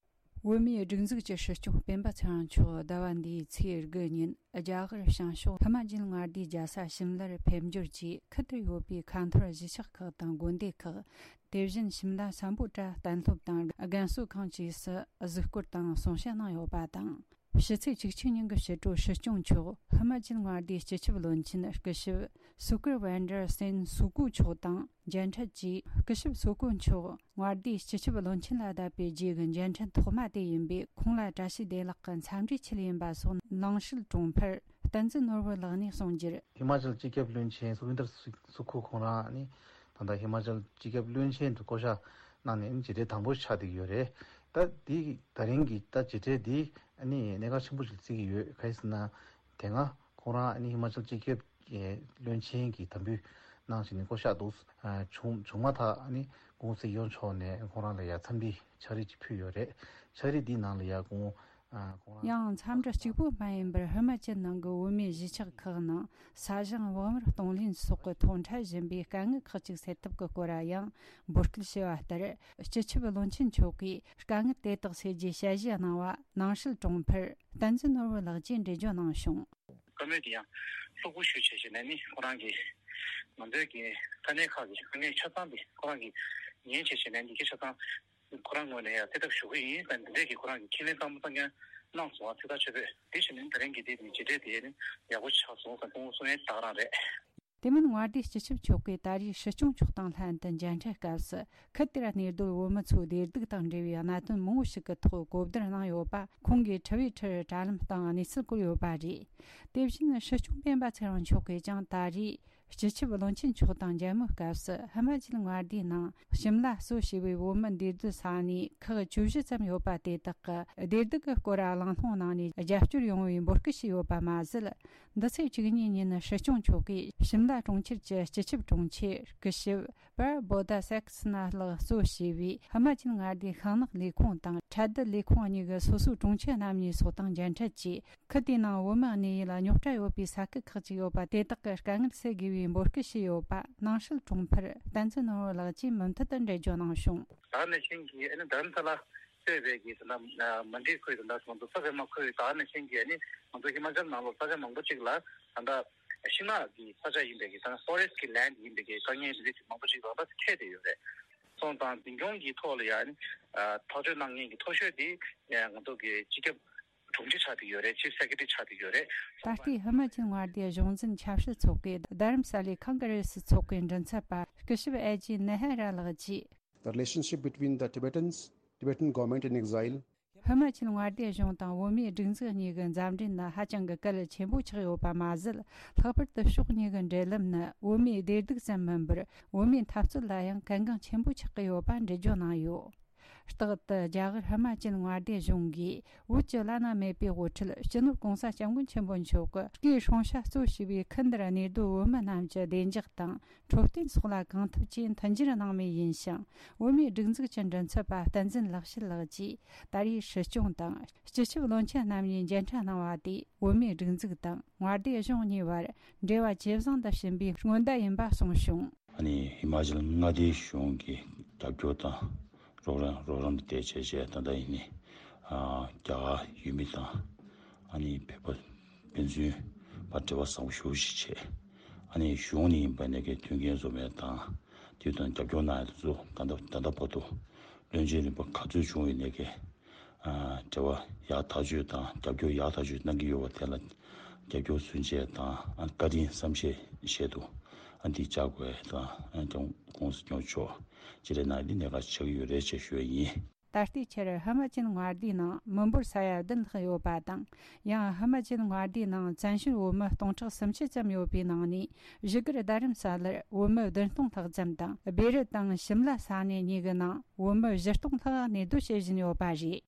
བོད་མིའི་སྒྲིག་འཛུགས་ཀྱི་སྲིད་སྐྱོང་སྤེན་པ་ཚེ་རིང་མཆོག་ཟླ་བ་འདིའི་ཚེས་དགུ་ཉིན་རྒྱ་གར་བྱང་ཕྱོགས་ཧི་མ་ཅལ་མངའ་སྡེའི་རྒྱལ་ས་ཤིམ་ལར་ཕེབས་འབྱོར་གྱིས། ཁུལ་དེར་ཡོད་པའི་ཁ་འཐོར་གཞིས་ཆགས་ཁག་དང་དགོན་སྡེ་ཁག། དེ་བཞིན་ཤིམ་ལ་སམ་བྷོ་ཊ་གཏན་སློབ་དང་རྒན་གསོ་ཁང་བཅས་སུ་གཟིགས་སྐོར་དང་གསུང་བཤད་གནང་ཡོད་པ་དང་། ཕྱི་ཚེས་བཅུ་གཅིག་ཉིན་གྱི་ཕྱི་དྲོ་སྲིད་སྐྱོང་མཆོག་ཧི་མ་ཅལ་མངའ་སྡེའི་སྤྱི་ཁྱབ་བློན་ཆེན་སྐུ་ཞབས་སུ་ཀུར་ཝན་ཌར་སེན་སུ་ཀུ་མཆོག་དང་མཇལ་འཕྲད་ཀྱིས། སྐུ་ཞབས་སུ་ཀུ་མཆོག་མངའ་སྡེའི་སྤྱི་ཁྱབ་བློན་ཆེན་ལ་བསྡད་པའི་རྗེས་ཀྱི་མཇལ་འཕྲད་ཐོག་མ་དེ་ཡིན་པས། ཁོང་ལ་བཀྲ་ཤིས་བདེ་ལེགས་ཀྱི་འཚམས་འདྲིའི་ཆེད་ཡིན་པ་སོགས་ནང་སྲིད་དྲུང་འཕར་བསྟན་འཛིན་ནོར་བུ་ལགས་ནས་གསུངས་རྒྱུར། ཧི་མ་ཅལ་སྤྱི་ཁྱབ་བློན་ཆེན་སུ་ཝིན་དར་སུ་ཁུ་ཁོང་རང་ནི་ད་ལྟ་ཧི་མ་ཅལ་སྤྱི་ཁྱབ་བློན་ཆེན་དུ་བསྐོ་གཞག་གནང་ནས་མཇལ་འཕྲད་དང་པོ་ཆགས་བསྡད་ཀྱི་ཡོད་རེད། ད་འདི་ད་རིང་གི་ད་མཇལ་འཕྲད་འདི་ནི་གནད་འགག་ཆེན་པོ་ཞིག་བརྩི་གི་ཡོད། ག་རེ་ཟེར་ན། དེ་སྔ་ཁོང་རང་ཧི་མ་ཅལ་སྤྱི་ཁྱབ་ཀྱི་བློན་ཆེན་གྱི་དམ་འབུལ་གནང་བྱས་ནས་བསྐོ་གཞག་འདུག་བྱུང་བྱུང་མ་ཐག་ནི་སྐུ་ངོ་སྲིད་སྐྱོང་མཆོག་ནས་ཁོང་རང་ལ་ཡ་འཚམས་འདྲི་ཕྱག་བྲིས་ཅིག་ཕུལ་ཡོད་རེད། ཕྱག་བྲིས་འདིའི་ནང་ལ་ཡ་སྐུ་ངོ་ཁོང་རང་ཡང་འཚམས་འདྲི་གཅིག་པུ་མ་ཡིན་པར་ཧི་མ་ཅལ་ནང་གི་བོད་མིའི་གཞིས་ཆགས་ཁག་ནང་ས་ཞིང་བག་མར་གཏོང་ལེན་སོགས་ཀྱི་ཐོག་འཕྲད་བཞིན་པའི་དཀའ་ངལ་ཁག་ཅིག་སེལ་ཐབས་ཀྱི་སྐོར་ཡང་འབོད་སྐུལ་བྱས་པ་ལྟར། སྤྱི་ཁྱབ་བློན་ཆེན་མཆོག་གིས་དཀའ་ངལ་དེ་དག་སེལ་རྒྱུའི་ཞལ་བཞེས་གནང་བ་ནང་སྲིད་དྲུང་འཕར་བསྟན་འཛིན་ནོར་བུ་ལགས་ཀྱིས་འགྲེལ་བརྗོད་གནང་བྱུང་། བཀའ་མོལ་དེ་ཡང་ལྷུག་པོ་ཞུས་བྱས་བྱས་ནས་ནི་ཁོ་རང་གིས་ང་ཚོའི་གི་ས་གནས་ཁག་གི་དཀའ་ངལ་ཆ་ཚང་དེ་ཁོ་རང་གིས་ཉན་བྱས་བྱས་ནས་འདི་གའི་ཆ་ཚང་ཁོ་རང་ངོས་ནས་ཡང་སེལ་ཐབས་ཞུ་གི་ཡིན་ཟེར་འདི་འདྲས་ཀྱི་ཁོ་རང་གི་ཁས་ལེན་གཙང་མ་གཙང་རྐྱང་གནང་སོང་བ། ཚེ་ཐར་ཆོས་འཕེལ་དེ་བཞིན་ནི་ད་རིང་གི་དེ་ནི་མཇལ་འཕྲད་དེ་ནི་ཡག་པོ་ཆགས་སོང་ཟེར་སྐུ་ངོ་གསུང་ཡས་ད་ག་རང་རེད། དེ་མིན་མངའ་སྡེའི་སྤྱི་ཁྱབ་མཆོག་གིས་ད་རེས་སྲིད་སྐྱོང་མཆོག་དང་ལྷན་དུ་མཇལ་འཕྲད་སྐབས་སུ། ཁུལ་དེར་གནས་སྡོད་བོད་མི་ཚོའི་བདེ་སྡུག་དང་འབྲེལ་བའི་གནད་དོན་མང་པོ་ཞིག་གི་ཐོག་གོ་བསྡུར་གནང་ཡོད་པ་ཁོང་གིས་དྲི་བའི་ཁྲིར་དྲ་ལམ་སྟེང་གནས་ཚུལ་བཀོད་ཡོད་པ་རེད། དེ་བཞིན་སྲིད་སྐྱོང་སྤེན་པ་ཚེ་རིང་མཆོག་གིས་ཀྱང་ད་རེས་སྤྱི་ཁྱབ་བློན་ཆེན་མཆོག་དང་མཇལ་མོལ་སྐབས་སུ། ཧི་མ་ཅལ་མངའ་སྡེའི་ནང་ཞིམ་ལ་གཙོ་བྱས་པའི་བོད་མི་འདུས་སྡོད་ས་གནས་ཁག་བཅུ་བཞི་ཙམ་ཡོད་པ་དེ་དག་གི་བདེ་སྡུག་གི་སྐོར་གླེང་སློང་གནང་ནས་རྒྱབ་སྐྱོར་ཡོང་བའི་འབོད་སྐུལ་ཞུས་ཡོད་པ་མ་ཟད། འདི་ཚེས་བཅུ་གཉིས་ཉིན་སྲིད་སྐྱོང་མཆོག་གིས་ཞིམ་ལ་གྲོང་ཁྱེར་གྱི་སྤྱི་ཁྱབ་དྲུང་ཆེ་སྐུ་ཞབས་པར་བོ་ད་སེག་སི་ན་ལགས་གཙོ་བྱས་པའི་ཧི་མ་ཅལ་མངའ་སྡེའི་ཤིང་ནགས་ལས་ཁུངས་དང་ཁྲལ་བསྡུ་ལས་ཁུངས་གཉིས་ཀྱི་སོ་སོའི་དྲུང་ཆེ་རྣམ་གཉིས་སོགས་དང་མཇལ་འཕྲད་ཀྱིས། ཁུལ་དེའི་ནང་བོད་མི་གནས་ཡུལ་རྙོག་དྲ་ཡོད་པའི་ས་ཁུལ་ཁག་ཅིག་ཡོད་པ་དེ་དག་གི་དཀའ་ངལ་སེལ་དགོས་པའི་འབོད་སྐུལ་ཞུས་ཡོད་པ་ནང་སྲིད་དྲུང་འཕར་བསྟན་འཛིན་ནོར་བུ་ལགས་ཀྱིས་མུ་མཐུད་དུ་འགྲེལ་བརྗོད་གནང་བྱུང་། ད་ནས་ཤིང་གི་ཨ་ནི་རྡ་རམ་ས་ལ་གཙོས་པའི་གི་ད་ལྟ་མན་ཌི་ཁུལ་དང་ད་ང་ཚོ་ས་ཆ་མ་ཁུལ་ད་ནས་ཤིང་གི་ཨ་ནི་ང་ཚོ་ཧི་མ་ཅལ་ནང་ལོགས་ས་ཆ་མང་པོ་ཅིག་ལ་ད་ལྟ་ཤིང་ནགས་ཀྱི་ས་ཆ་ཡིན་པའི་གི་ད་ཕོ་རེ་སི་ཊི་ཀྱི་ལེན་ཌི་ཡིན་པའི་གི་དཀའ་ངལ་འདི་འདྲ་ཅིག་མང་པོ་ཅིག་ད་ལྟ་འཕྲད་དེ་ཡོད་རེད། སོང་ཙང་འཛིན་སྐྱོང་གི་ཐོག་ལ་ཡང་ཨ་ནི་ཐག་གཅོད་གནང་མཁན་གྱི་མཐོ་ཤོས་དེ་ང་ཚོ་གི་སྤྱི་ཁྱབ་དྲུང་ཆེ་ཆགས་བསྡད་ཡོད་རེད། ཅིབ་སེ་ཀེ་ཊི་རི་ཆགས་བསྡད་ཡོད་རེད། ད་ལྟའི་ཧི་མ་ཅལ་མངའ་སྡེའི་གཞུང་འཛིན་ཆབ་སྲིད་ཚོགས་པའི་རྡ་རམ་ས་ལའི་ཁོང་གྷ་རེ་སི་ཚོགས་པའི་མགྲིན་ཚབ་པ་སྐུ་ཞབས་ཨེ་ཇི་ནེ་ཧ་ར་ལགས་ཀྱིས། The relationship between the Tibetans, Tibetan government in exile, ཧི་མ་ཅལ་མངའ་སྡེའི་གཞུང་དང་བོད་མིའི་སྒྲིག་འཛུགས་གཉིས་ཀྱི་མཛའ་འབྲེལ་ནི་ཧ་ཅང་གི་གལ་ཆེན་པོ་ཆགས་ཡོད་པ་མ་ཟད། ལྷག་པར་དུ་ཕྱོགས་གཉིས་ཀྱི་འབྲེལ་ལམ་ནི་བོད་མིའི་བདེ་སྡུག་ཙམ་མིན་པར། བོད་མིའི་འཐབ་རྩོད་ལ་ཡང་གལ་འགངས་ཆེན་པོ་ཆགས་ཀྱི་ཡོད་པ་འགྲེལ་བརྗོད་གནང་ཡོད། རྟག་ཏུ་རྒྱ་གར་ཧི་མ་ཅལ་མངའ་སྡེ་གཞུང་གིས་བོད་ཀྱི་བླ་ན་མེད་པའི་དབུ་ཁྲིད་སྤྱི་ནོར་༸གོང་ས་༸སྐྱབས་མགོན་ཆེན་པོ་མཆོག་གི་སྐུའི་སྲུང་བྱ་གཙོ་བྱས་པའི་ཁུལ་འདིར་གནས་སྡོད་བོད་མི་རྣམས་ཀྱི་བདེ་འཇགས་དང་འཕྲོད་བསྟེན་སོགས་ལ་གང་ཐུབ་ཀྱིས་མཐུན་འགྱུར་གནང་མུས་ཡིན་ཞིང་། བོད་མིའི་སྒྲིག་འཛུགས་ཀྱི་མགྲིན་ཚབ་པ་བསྟན་འཛིན་ལེགས་བཤད་ལགས་ཀྱིས་ད་རེས་སྲིད་སྐྱོང་དང་སྤྱི་ཁྱབ་བློན་ཆེན་རྣམ་གཉིས་མཇལ་འཕྲད་གནང་བ་དེས་བོད་མིའི་སྒྲིག་འཛུགས་དང་མངའ་སྡེ་གཞུང་གཉིས་བར་འབྲེལ་བ་ཇེ་བཟང་དུ་ཕྱིན་པའི་སྔོན་བརྡ་ཡིན་པ་གསུངས་བྱུང་། ཨ་ནི་ཧི་མ་ཅལ་མངའ་སྡེའི་གཞུང་གི་རྒྱབ་སྐྱོར་དང་རོགས་རམ་རོགས་རམ་དེ་བྱས་བྱས་ད་ལྟ་ཡིན་ནི་ཨ་རྒྱ་གར་ཡུལ་མི་དང་ཨ་ནི་བོད་པ་ཕན་ཚུན་བར་འབྲེལ་བ་བཟང་པོ་ཞེ་པོ་ཞིག་བྱས། ཨ་ནི་གཞུང་ནས་ཡིན་པ་ནས་ཀྱི་མཐུན་རྐྱེན་བཟོ་མེད་དང་དེ་དང་རྒྱབ་སྐྱོར་གནང་ཡ་དེ་ཚོ་ད་ལྟ་ད་ལྟ་བར་དུ་བློན་ཆེན་རིམ་པ་ག་ཚོད་བྱུང་ཡོད་ནས་ཀྱི་ཨ་འབྲེལ་བ་ཡག་ཐག་ཆོད་དང་རྒྱབ་སྐྱོར་ཡག་ཐག་ཆོད་གནང་གི་ཡོད་པ་དེ་ལ་རྒྱབ་སྐྱོར་ཚུན་ཆད་དང་ཨ་བཀའ་དྲིན་བསམ་ཤེས་བཞེས་འདུག་ཨ་འདི་བཅར་དགོས་དང་ཨ་ཀྱང་༸གོང་ས་༸སྐྱབས་མགོན་མཆོག་ཅི་རེད་ན་འདི་གནད་འགག་ཆགས་ཀྱི་ཡོད་རེད་ཅེས་ཞུ་ཡ་ཡིན། ད་ལྟའི་ཆར་ཧི་མ་ཅལ་མངའ་སྡེའི་ནང་མི་འབོར་ས་ཡ་བདུན་ལྷག་ཡོད་པ་དང་། ཡང་ཧི་མ་ཅལ་མངའ་སྡེའི་ནང་བཙན་བྱོལ་བོད་མི་སྟོང་ཕྲག་སུམ་ཅུ་ཙམ་ཡོད་པའི་ནང་ནས། བཞུགས་སྒར་རྡ་རམ་ས་ལར་བོད་མི་བདུན་སྟོང་ལྷག་ཙམ་དང་། སྦི་རི་དང་ཤིམ་ལ་ས་གནས་གཉིས་ཀྱི་ནང་བོད་མི་བཞི་སྟོང་ལྷག་གནས་སྡོད་བྱེད་བཞིན་ཡོད་པ་རེད།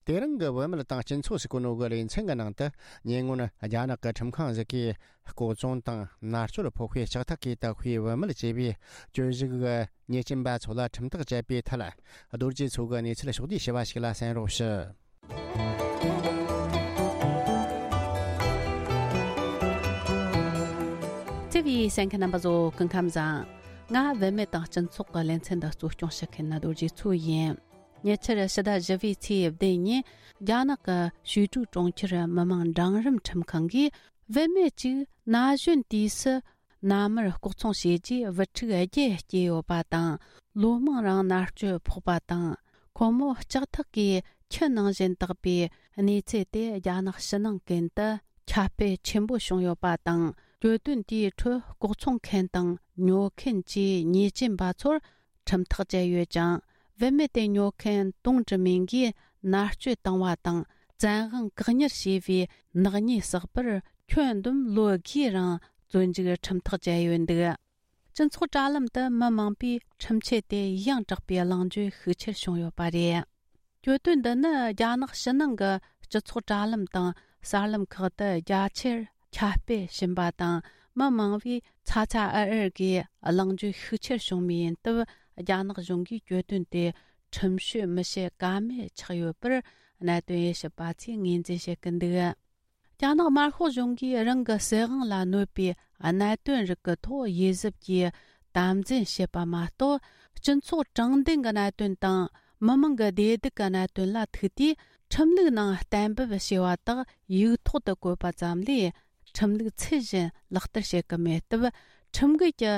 དེ་རིང་གི་བུད་མེད་དང་སྤྱི་ཚོགས་ཟེར་གོ་ནོ་གི་ལེ་ཚན་གྱི་ནང་དུ། ཉེ་སྔོན་རྒྱ་ནག་གི་ཁྲིམས་ཁང་ཞིག་གིས་ལྐོག་བཙོང་དང་མནར་གཅོད་ཕོག་ཤུལ་ལྕགས་ཐག་གིས་བཏགས་པའི་བུད་མེད་ཅེས་པའི་གྱོད་གཞི་གི་ཉེས་ཅན་པ་ཚོ་ལ་ཁྲིམས་ཐག་བཅད་པའི་ཐད། རྡོ་རྗེ་མཚོ་གིས་གནས་ཚུལ་ཕྱོགས་བསྡུས་ཞུས་པ་ཞིག་ལ་གསན་རོགས་ཞུ། ཐེ་བའི་གསན་མཁན་རྣམ་པ་ཚོ་སྐུ་ཁམས་བཟང་། ང་བུད་མེད་དང་སྤྱི་ཚོགས་ཀྱི་ལེ་ཚན་འདི་གཙོ་སྐྱོང་བྱེད་མཁན་ནི་རྡོ་རྗེ་མཚོ་ཡིན། ཉེ་ཆར་ཕྱི་ཟླ་བཞི་པའི་ཚེས་བདུན་ཉིན། རྒྱ་ནག་གི་ཞུས་ཀྲུའུ་གྲོང་ཁྱེར་མི་དམངས་འབྲིང་རིམ་ཁྲིམས་ཁང་གིས། བུད་མེད་ཅིག་ན་གཞོན་དུས་སུ་མནའ་མར་ལྐོག་ཚོང་བྱས་རྗེས་བུ་ཕྲུག་བརྒྱད་སྐྱེས་ཡོད་པ་དང་། ལོ་མང་རིང་མནར་གཅོད་ཕོག་པ་དང་། ཁོ་མོ་ལྕགས་ཐག་གིས་ཁྱི་ནང་བཞིན་བཏགས་པའི་གནས་ཚུལ་དེ་རྒྱ་ནག་ཕྱི་ནང་ཀུན་ཏུ་ཁྱབ་སྤེལ་ཆེན་པོ་བྱུང་ཡོད་པ་དང་། གྱོད་དོན་དེའི་ཁྲོད་ལྐོག་ཚོང་མཁན་དང་ཉོ་མཁན་གྱི་ཉེས་ཅན་པ་ཚོར་ཁྲིམས་ཐག་བཅད་ཡོད་ཅིང་། བུད་མེད་དེ་ཉོ་མཁན་ཏུང་ཀྲི་མིང་གིས་མནར་གཅོད་བཏང་བ་དང་། བཙན་དབང་བཀག་ཉར་བྱས་པའི་ནག་ཉེས་བསགས་པར། ཁྱོན་བསྡོམས་ལོ་དགུའི་རིང་བཙོན་འཇུག་ཁྲིམས་ཐག་བཅད་ཡོད་འདུག། སྤྱི་ཚོགས་དྲ་ལམ་དུ་མི་མང་པོས་ཁྲིམས་ཆད་དེ་ཡང་དྲག་པའི་གླེང་བརྗོད་ཤུགས་ཆེར་བྱུང་ཡོད་པ་རེད། གྱོད་དོན་འདི་ནི་རྒྱ་ནག་ཕྱི་ནང་གི་སྤྱི་ཚོགས་དྲ་ལམ་དང་གསར་ལམ་ཁག་ཏུ་རྒྱ་ཆེར་ཁྱབ་སྤེལ་ཕྱིན་པ་དང་། མི་མང་བོས་ཚ་ཚ་འུར་འུར་གྱིས་གླེང་བརྗོད་ཤུགས་ཆེར་བྱུང་བ་ཡིན་སྟབས། རྒྱ་ནག་གཞུང་གིས་གྱོད་དོན་དེ་ཁྲིམས་ཞིབ་མི་བྱེད་ཀ་མེད་ཆགས་ཡོད་པར། གནད་དོན་དབྱེ་ཞིབ་པ་ཚོས་ངོས་འཛིན་བྱེད་ཀྱི་འདུག། རྒྱ་ནག་དམར་ཤོག་གཞུང་གིས་རང་གི་སྲིད་དབང་ལ་གནོད་པའི་གནད་དོན་རིགས་ཀྱི་ཐོག་དབྱེ་གཟབ་ཀྱིས་དམ་འཛིན་བྱེད་པ་མ་གཏོགས། སྤྱི་ཚོགས་དྲང་བདེན་གྱི་གནད་དོན་དང་། མི་མང་གི་བདེ་སྡུག་གི་གནད་དོན་ལ་ཐུག་དུས། ཁྲིམས་ལུགས་ནང་གཏན་འབེབས་བྱས་པ་དག་ཡིག་ཐོག་ཏུ་བཀོད་པ་ཙམ་ལས། ཁྲིམས་ལུགས་ཚུལ་བཞིན་ལག་བསྟར་བྱེད་ཀྱི་མེད་སྟབས། ཁྲིམས་འགལ་གྱི་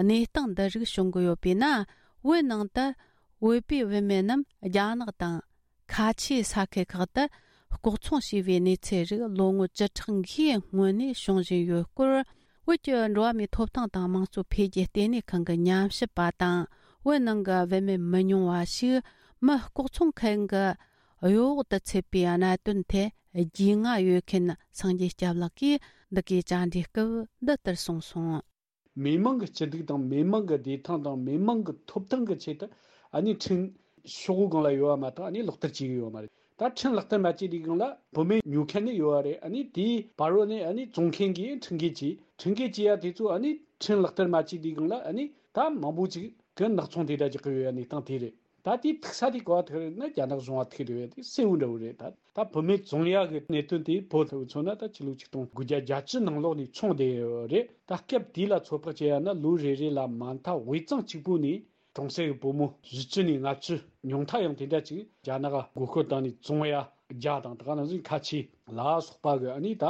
གནས་སྟངས་འདི་རིགས་བྱུང་གི་ཡོད་པས་ན། བོད་ནང་དུ་བོད་པའི་བུད་མེད་རྣམས་རྒྱ་ནག་དང་། ཁ་ཆེའི་ས་ཁུལ་ཁག་ཏུ་ལྐོག་ཚོང་བྱས་པའི་གནས་ཚུལ་རིགས་ལོ་ངོ་བཅུ་ཕྲག་འགའི་སྔོན་ནས་བྱུང་བཞིན་ཡོད་སྐོར། བོད་ཀྱི་འགྲོ་བ་མིའི་ཐོབ་ཐང་དང་དམངས་གཙོ་འཕེལ་རྒྱས་ལྟེ་གནས་ཁང་གི་ཉམས་ཞིབ་པ་དང་། བོད་ནང་གི་བུད་མེད་མི་ཉུང་བ་ཞིག་མི་ལྐོག་ཚོང་མཁན་གྱི་གཡོ་འོག་ཏུ་ཚུད་པའི་གནད་དོན་ཐད་རྒྱུས་མངའ་ཡོད་མཁན་སངས་རྒྱས་སྐྱབས་ལགས་ཀྱིས་འདི་གའི་བཅར་འདྲིའི་སྐབས་འདི་ལྟར་གསུངས་སོང་། མི་མང་གི་སྐྱིད་སྡུག་དང་མི་མང་གི་བདེ་ཐང་དང་མི་མང་གི་ཐོབ་ཐང་གི་ཆེད་དུ། ཨ་ནི་ཁྲིམས་ཤོག་གུ་སྒང་ལ་ཡོད་པ་མ་གཏོགས་ཨ་ནི་ལག་བསྟར་བྱེད་ཀྱི་ཡོད་མ་རེད། ད་ཁྲིམས་ལག་བསྟར་མ་བྱས་དུས་སྒང་ལ་བུད་མེད་ཉོ་མཁན་ནི་ཡོད་པ་རེད། ཨ་ནི་དེའི་བར་རོ་ནས་ཨ་ནི་བཙོང་མཁན་གྱིས་ཁྲིམས་འགལ་བྱས་ཡ་དེ་ཚོ། ཨ་ནི་ཁྲིམས་ལག་བསྟར་མ་བྱས་དུས་སྒང་ལ་ཨ་ནི་ད་མང་པོ་ཅིག་གི་ནག་ཚོང་དེ་འདྲ་རྒྱག་གི་ཡོད་ཡ་གནས་སྟངས་དེ་རེད། ད་དེ་ཐུག་ས་དེ་ག་པར་ཐུག་རེད་ན། རྒྱ་ནག་གཞུང་ལ་ཐུག་རེད་པས། དེ་གསལ་བོ་འདྲ་བོ་རེད། ད་ད་བུད་མེད་བཙོང་ཡག་གི་གནད་དོན་དེ་བོད་ལ་མཚོན་ན་ད་ཕྱི་ལོ་ཆིག་སྟོང་དགུ་བརྒྱ་བརྒྱད་ཅུ་ནང་ལོགས་ནས་མཚོན་བསྡད་ཡོད་རེད། ད་སྐབས་དེ་ལ་ཚོད་དཔག་བྱས་ཡ་ན་ལོ་རེ་རེ་ལ་མ་མཐའ་དབུས་གཙང་གཅིག་པུ་ནས་གྲོང་གསེབ་ཀྱི་བུ་མོ་བཞི་བཅུ་ནས་ལྔ་བཅུ། ཉུང་མཐའ་ཡང་དེ་འདྲ་ཅིག་རྒྱ་ནག་ག་མགོ་སྐོར་བཏང་ནས་བཙོང་ཡ་རྒྱ་དང་། ད་ག་ནང་བཞིན་ཁ་ཆེ་ལ་སོགས་པ་གི་ཨ་ནི་ད་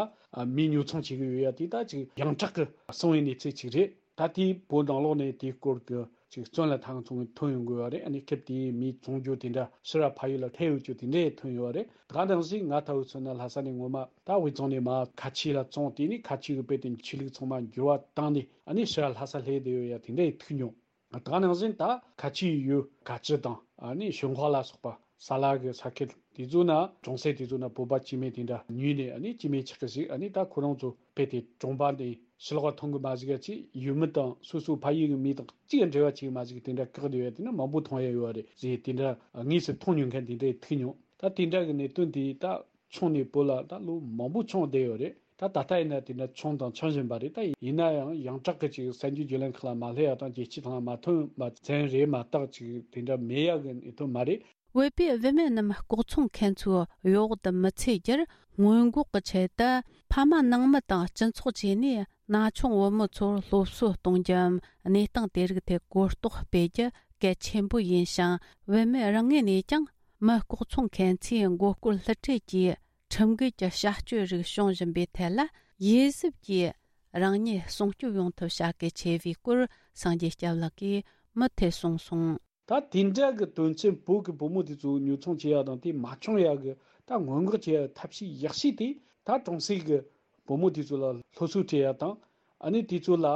མི་ཉོ་ཚོང་བྱེད་ཀྱི་ཡོད་ཡ་དེ་ད་ཅིག་ཡང་དྲག་གི་སོང་བའི་གནས་ཚུལ་ཅིག་རེད། ད་དེའི་བོད་ནང་ལོགས་ནས་དེའི་སྐོར་གྱི་ཅིག་བཙོན་ལ་ཐང་ཚོང་ཐོན་ཡོང་དགོས་པ་རེད། ཨ་ནི་སྐབས་དེའི་མི་བཙོང་རྒྱུ་དེ་འདྲ་ཕྱིར་ཕ་ཡུལ་ལ་ཐལ་ཡོད་རྒྱུ་དེ་འདྲས་ཐོན་ཡོད་པ་རེད། ད་ག་ནང་བཞིན་ང་ལྟ་བུ་མཚོན་ན་ལྷ་ས་ནས་ངོ་མ་ད་དབུས་གཙང་ནས་མར་ཁ་ཆེ་ལ་བཙོང་། དེ་ནས་ཁ་ཆེ་གི་དཔེ་དེ་ཆོས་ལུགས་ཚང་མ་འགྱུར་བ་བཏང་ནས་ཨ་ནི་ཕྱིར་ལྷ་ས་སླེབས་བསྡད་ཡོད་ཡ་དེ་འདྲས་ཐུག་མྱོང་། ད་ག་ནང་བཞིན་ད་ཁ་ཆེའི་ཡུལ་ཀ་ཅི་དང་། ཨ་ནི་ཞུན་ཧྭ་ལ་སོགས་པ་ས་ལ་གི་ས་ཁུལ་དེ་ཚོ་ན། གྲོང་གསེབ་དེ་ཚོ་ན་བོད་པ་སྐྱེ་དམན་དེ་འདྲ་ཉུལ་ནས། ཨ་ནི་སྐྱེ་དམན་ཆགས་ཀྱི་ཞིག་ཨ་ནི་ད་ཁོ་རང་ཚོ་དཔེ་དེ་གྲོང་པ་འདི་ཕྱི་ལོགས་མཐོང་གི་མ་བཅུག་ཡ་ཅིག་ཡུལ་མི་དང་སོ་སོ་ཕ་ཡུལ་གྱི་མི་དང་གཅིག་འབྲེལ་བ་བྱེད་ཀྱི་མ་བཅུག་དེ་འདྲ་བཀག་བསྡད་ཡོད་དེ་ནི་མང་པོ་མཐོང་ཡ་ཡོད་རེད་ཟེར། དེ་འདྲ་དངོས་སུ་མཐོང་མྱོང་མཁན་དེ་འདྲས་ཐུག་མྱོང་། ད་དེ་འདྲ་གི་གནད་དོན་དེ་ད་མཚོན་ནས་བོད་ལ་ད་ལོ་མང་པོ་མཚོན་བསྡད་ཡོད་རེད། ད་ད་ལྟ་ཡིན་ན་དེ་འདྲ་མཚོན་དང་མཚོན་བཞིན་པ་རེད། ད་ཡིན་ན་ཡང་ཡང་དྲག་གི་ཅིག་གསར་འགྱུར་བརྒྱུད་ལམ་ཁག་ལ་མ་སླེབས་ཡ་དང་རྒྱལ་སྤྱི་ཐོག་ལ་མ་ཐོན་པ་ཙམ་རེད་མ་གཏོགས་ཅིག་དེ་འདྲ་མེད་ཡ་གི་གནད་དོན་མ་རེད། བོད་པའི་བུད་མེད་རྣམས་ལྐོག་ཚོང་མཁན་ཚོའི་གཡོ་འོག་ཏུ་མི་ཚུད་རྒྱུར་སྔོན་འགོག་གི་ཆེད་དུ། ཕ་མ་ནང་མི་དང་སྤྱི་ཚོགས་བཅས་ནས་ན་ཆུང་བུ་མོ་ཚོར་སློབ་གསོ་གཏོང་རྒྱུའམ། གནས་སྟངས་དེ་རིགས་ཐད་གོ་རྟོགས་སྤེལ་རྒྱུ་གལ་ཆེན་པོ་ཡིན་ཞིང་། བུད་མེད་རང་ངོས་ནས་ཀྱང་མི་ལྐོག་ཚོང་མཁན་ཚོའི་མགོ་སྐོར་བསླུ་བྲིད་ཀྱིས་ཁྲིམས་འགལ་གྱི་བྱ་སྤྱོད་རིགས་བྱུང་བཞིན་པའི་ཐད་ལ། དབྱེ་གཟབ་ཀྱིས་རང་ཉིད་སྲུང་སྐྱོབ་ཡོང་ཐབས་བྱ་གལ་ཆེ་བའི་སྐོར་སངས་རྒྱས་སྐྱབས་ལགས་ཀྱིས་མུ་མཐུད་གསུངས་སོང་། ད་དེ་འདྲ་གི་དོན་ཚན་བོད་ཀྱི་བུ་མོ་དེ་ཚོ་ཉོ་ཚོང་བྱེད་ཡ་དང་དེ་མ་བྱུང་ཡ་གི་ད་སྔོན་འགོག་བྱེད་ཡ་ཐབས་ཤེས་ཡག་ཤོས་དེ། ད་གྲོང་གསེབ་ཀྱི་བུ་མོ་དེ་ཚོ་ལ་སློབ་གསོ་སྤྲད་ཡ་དང་། ཨ་ནི་དེ་ཚོ་ལ་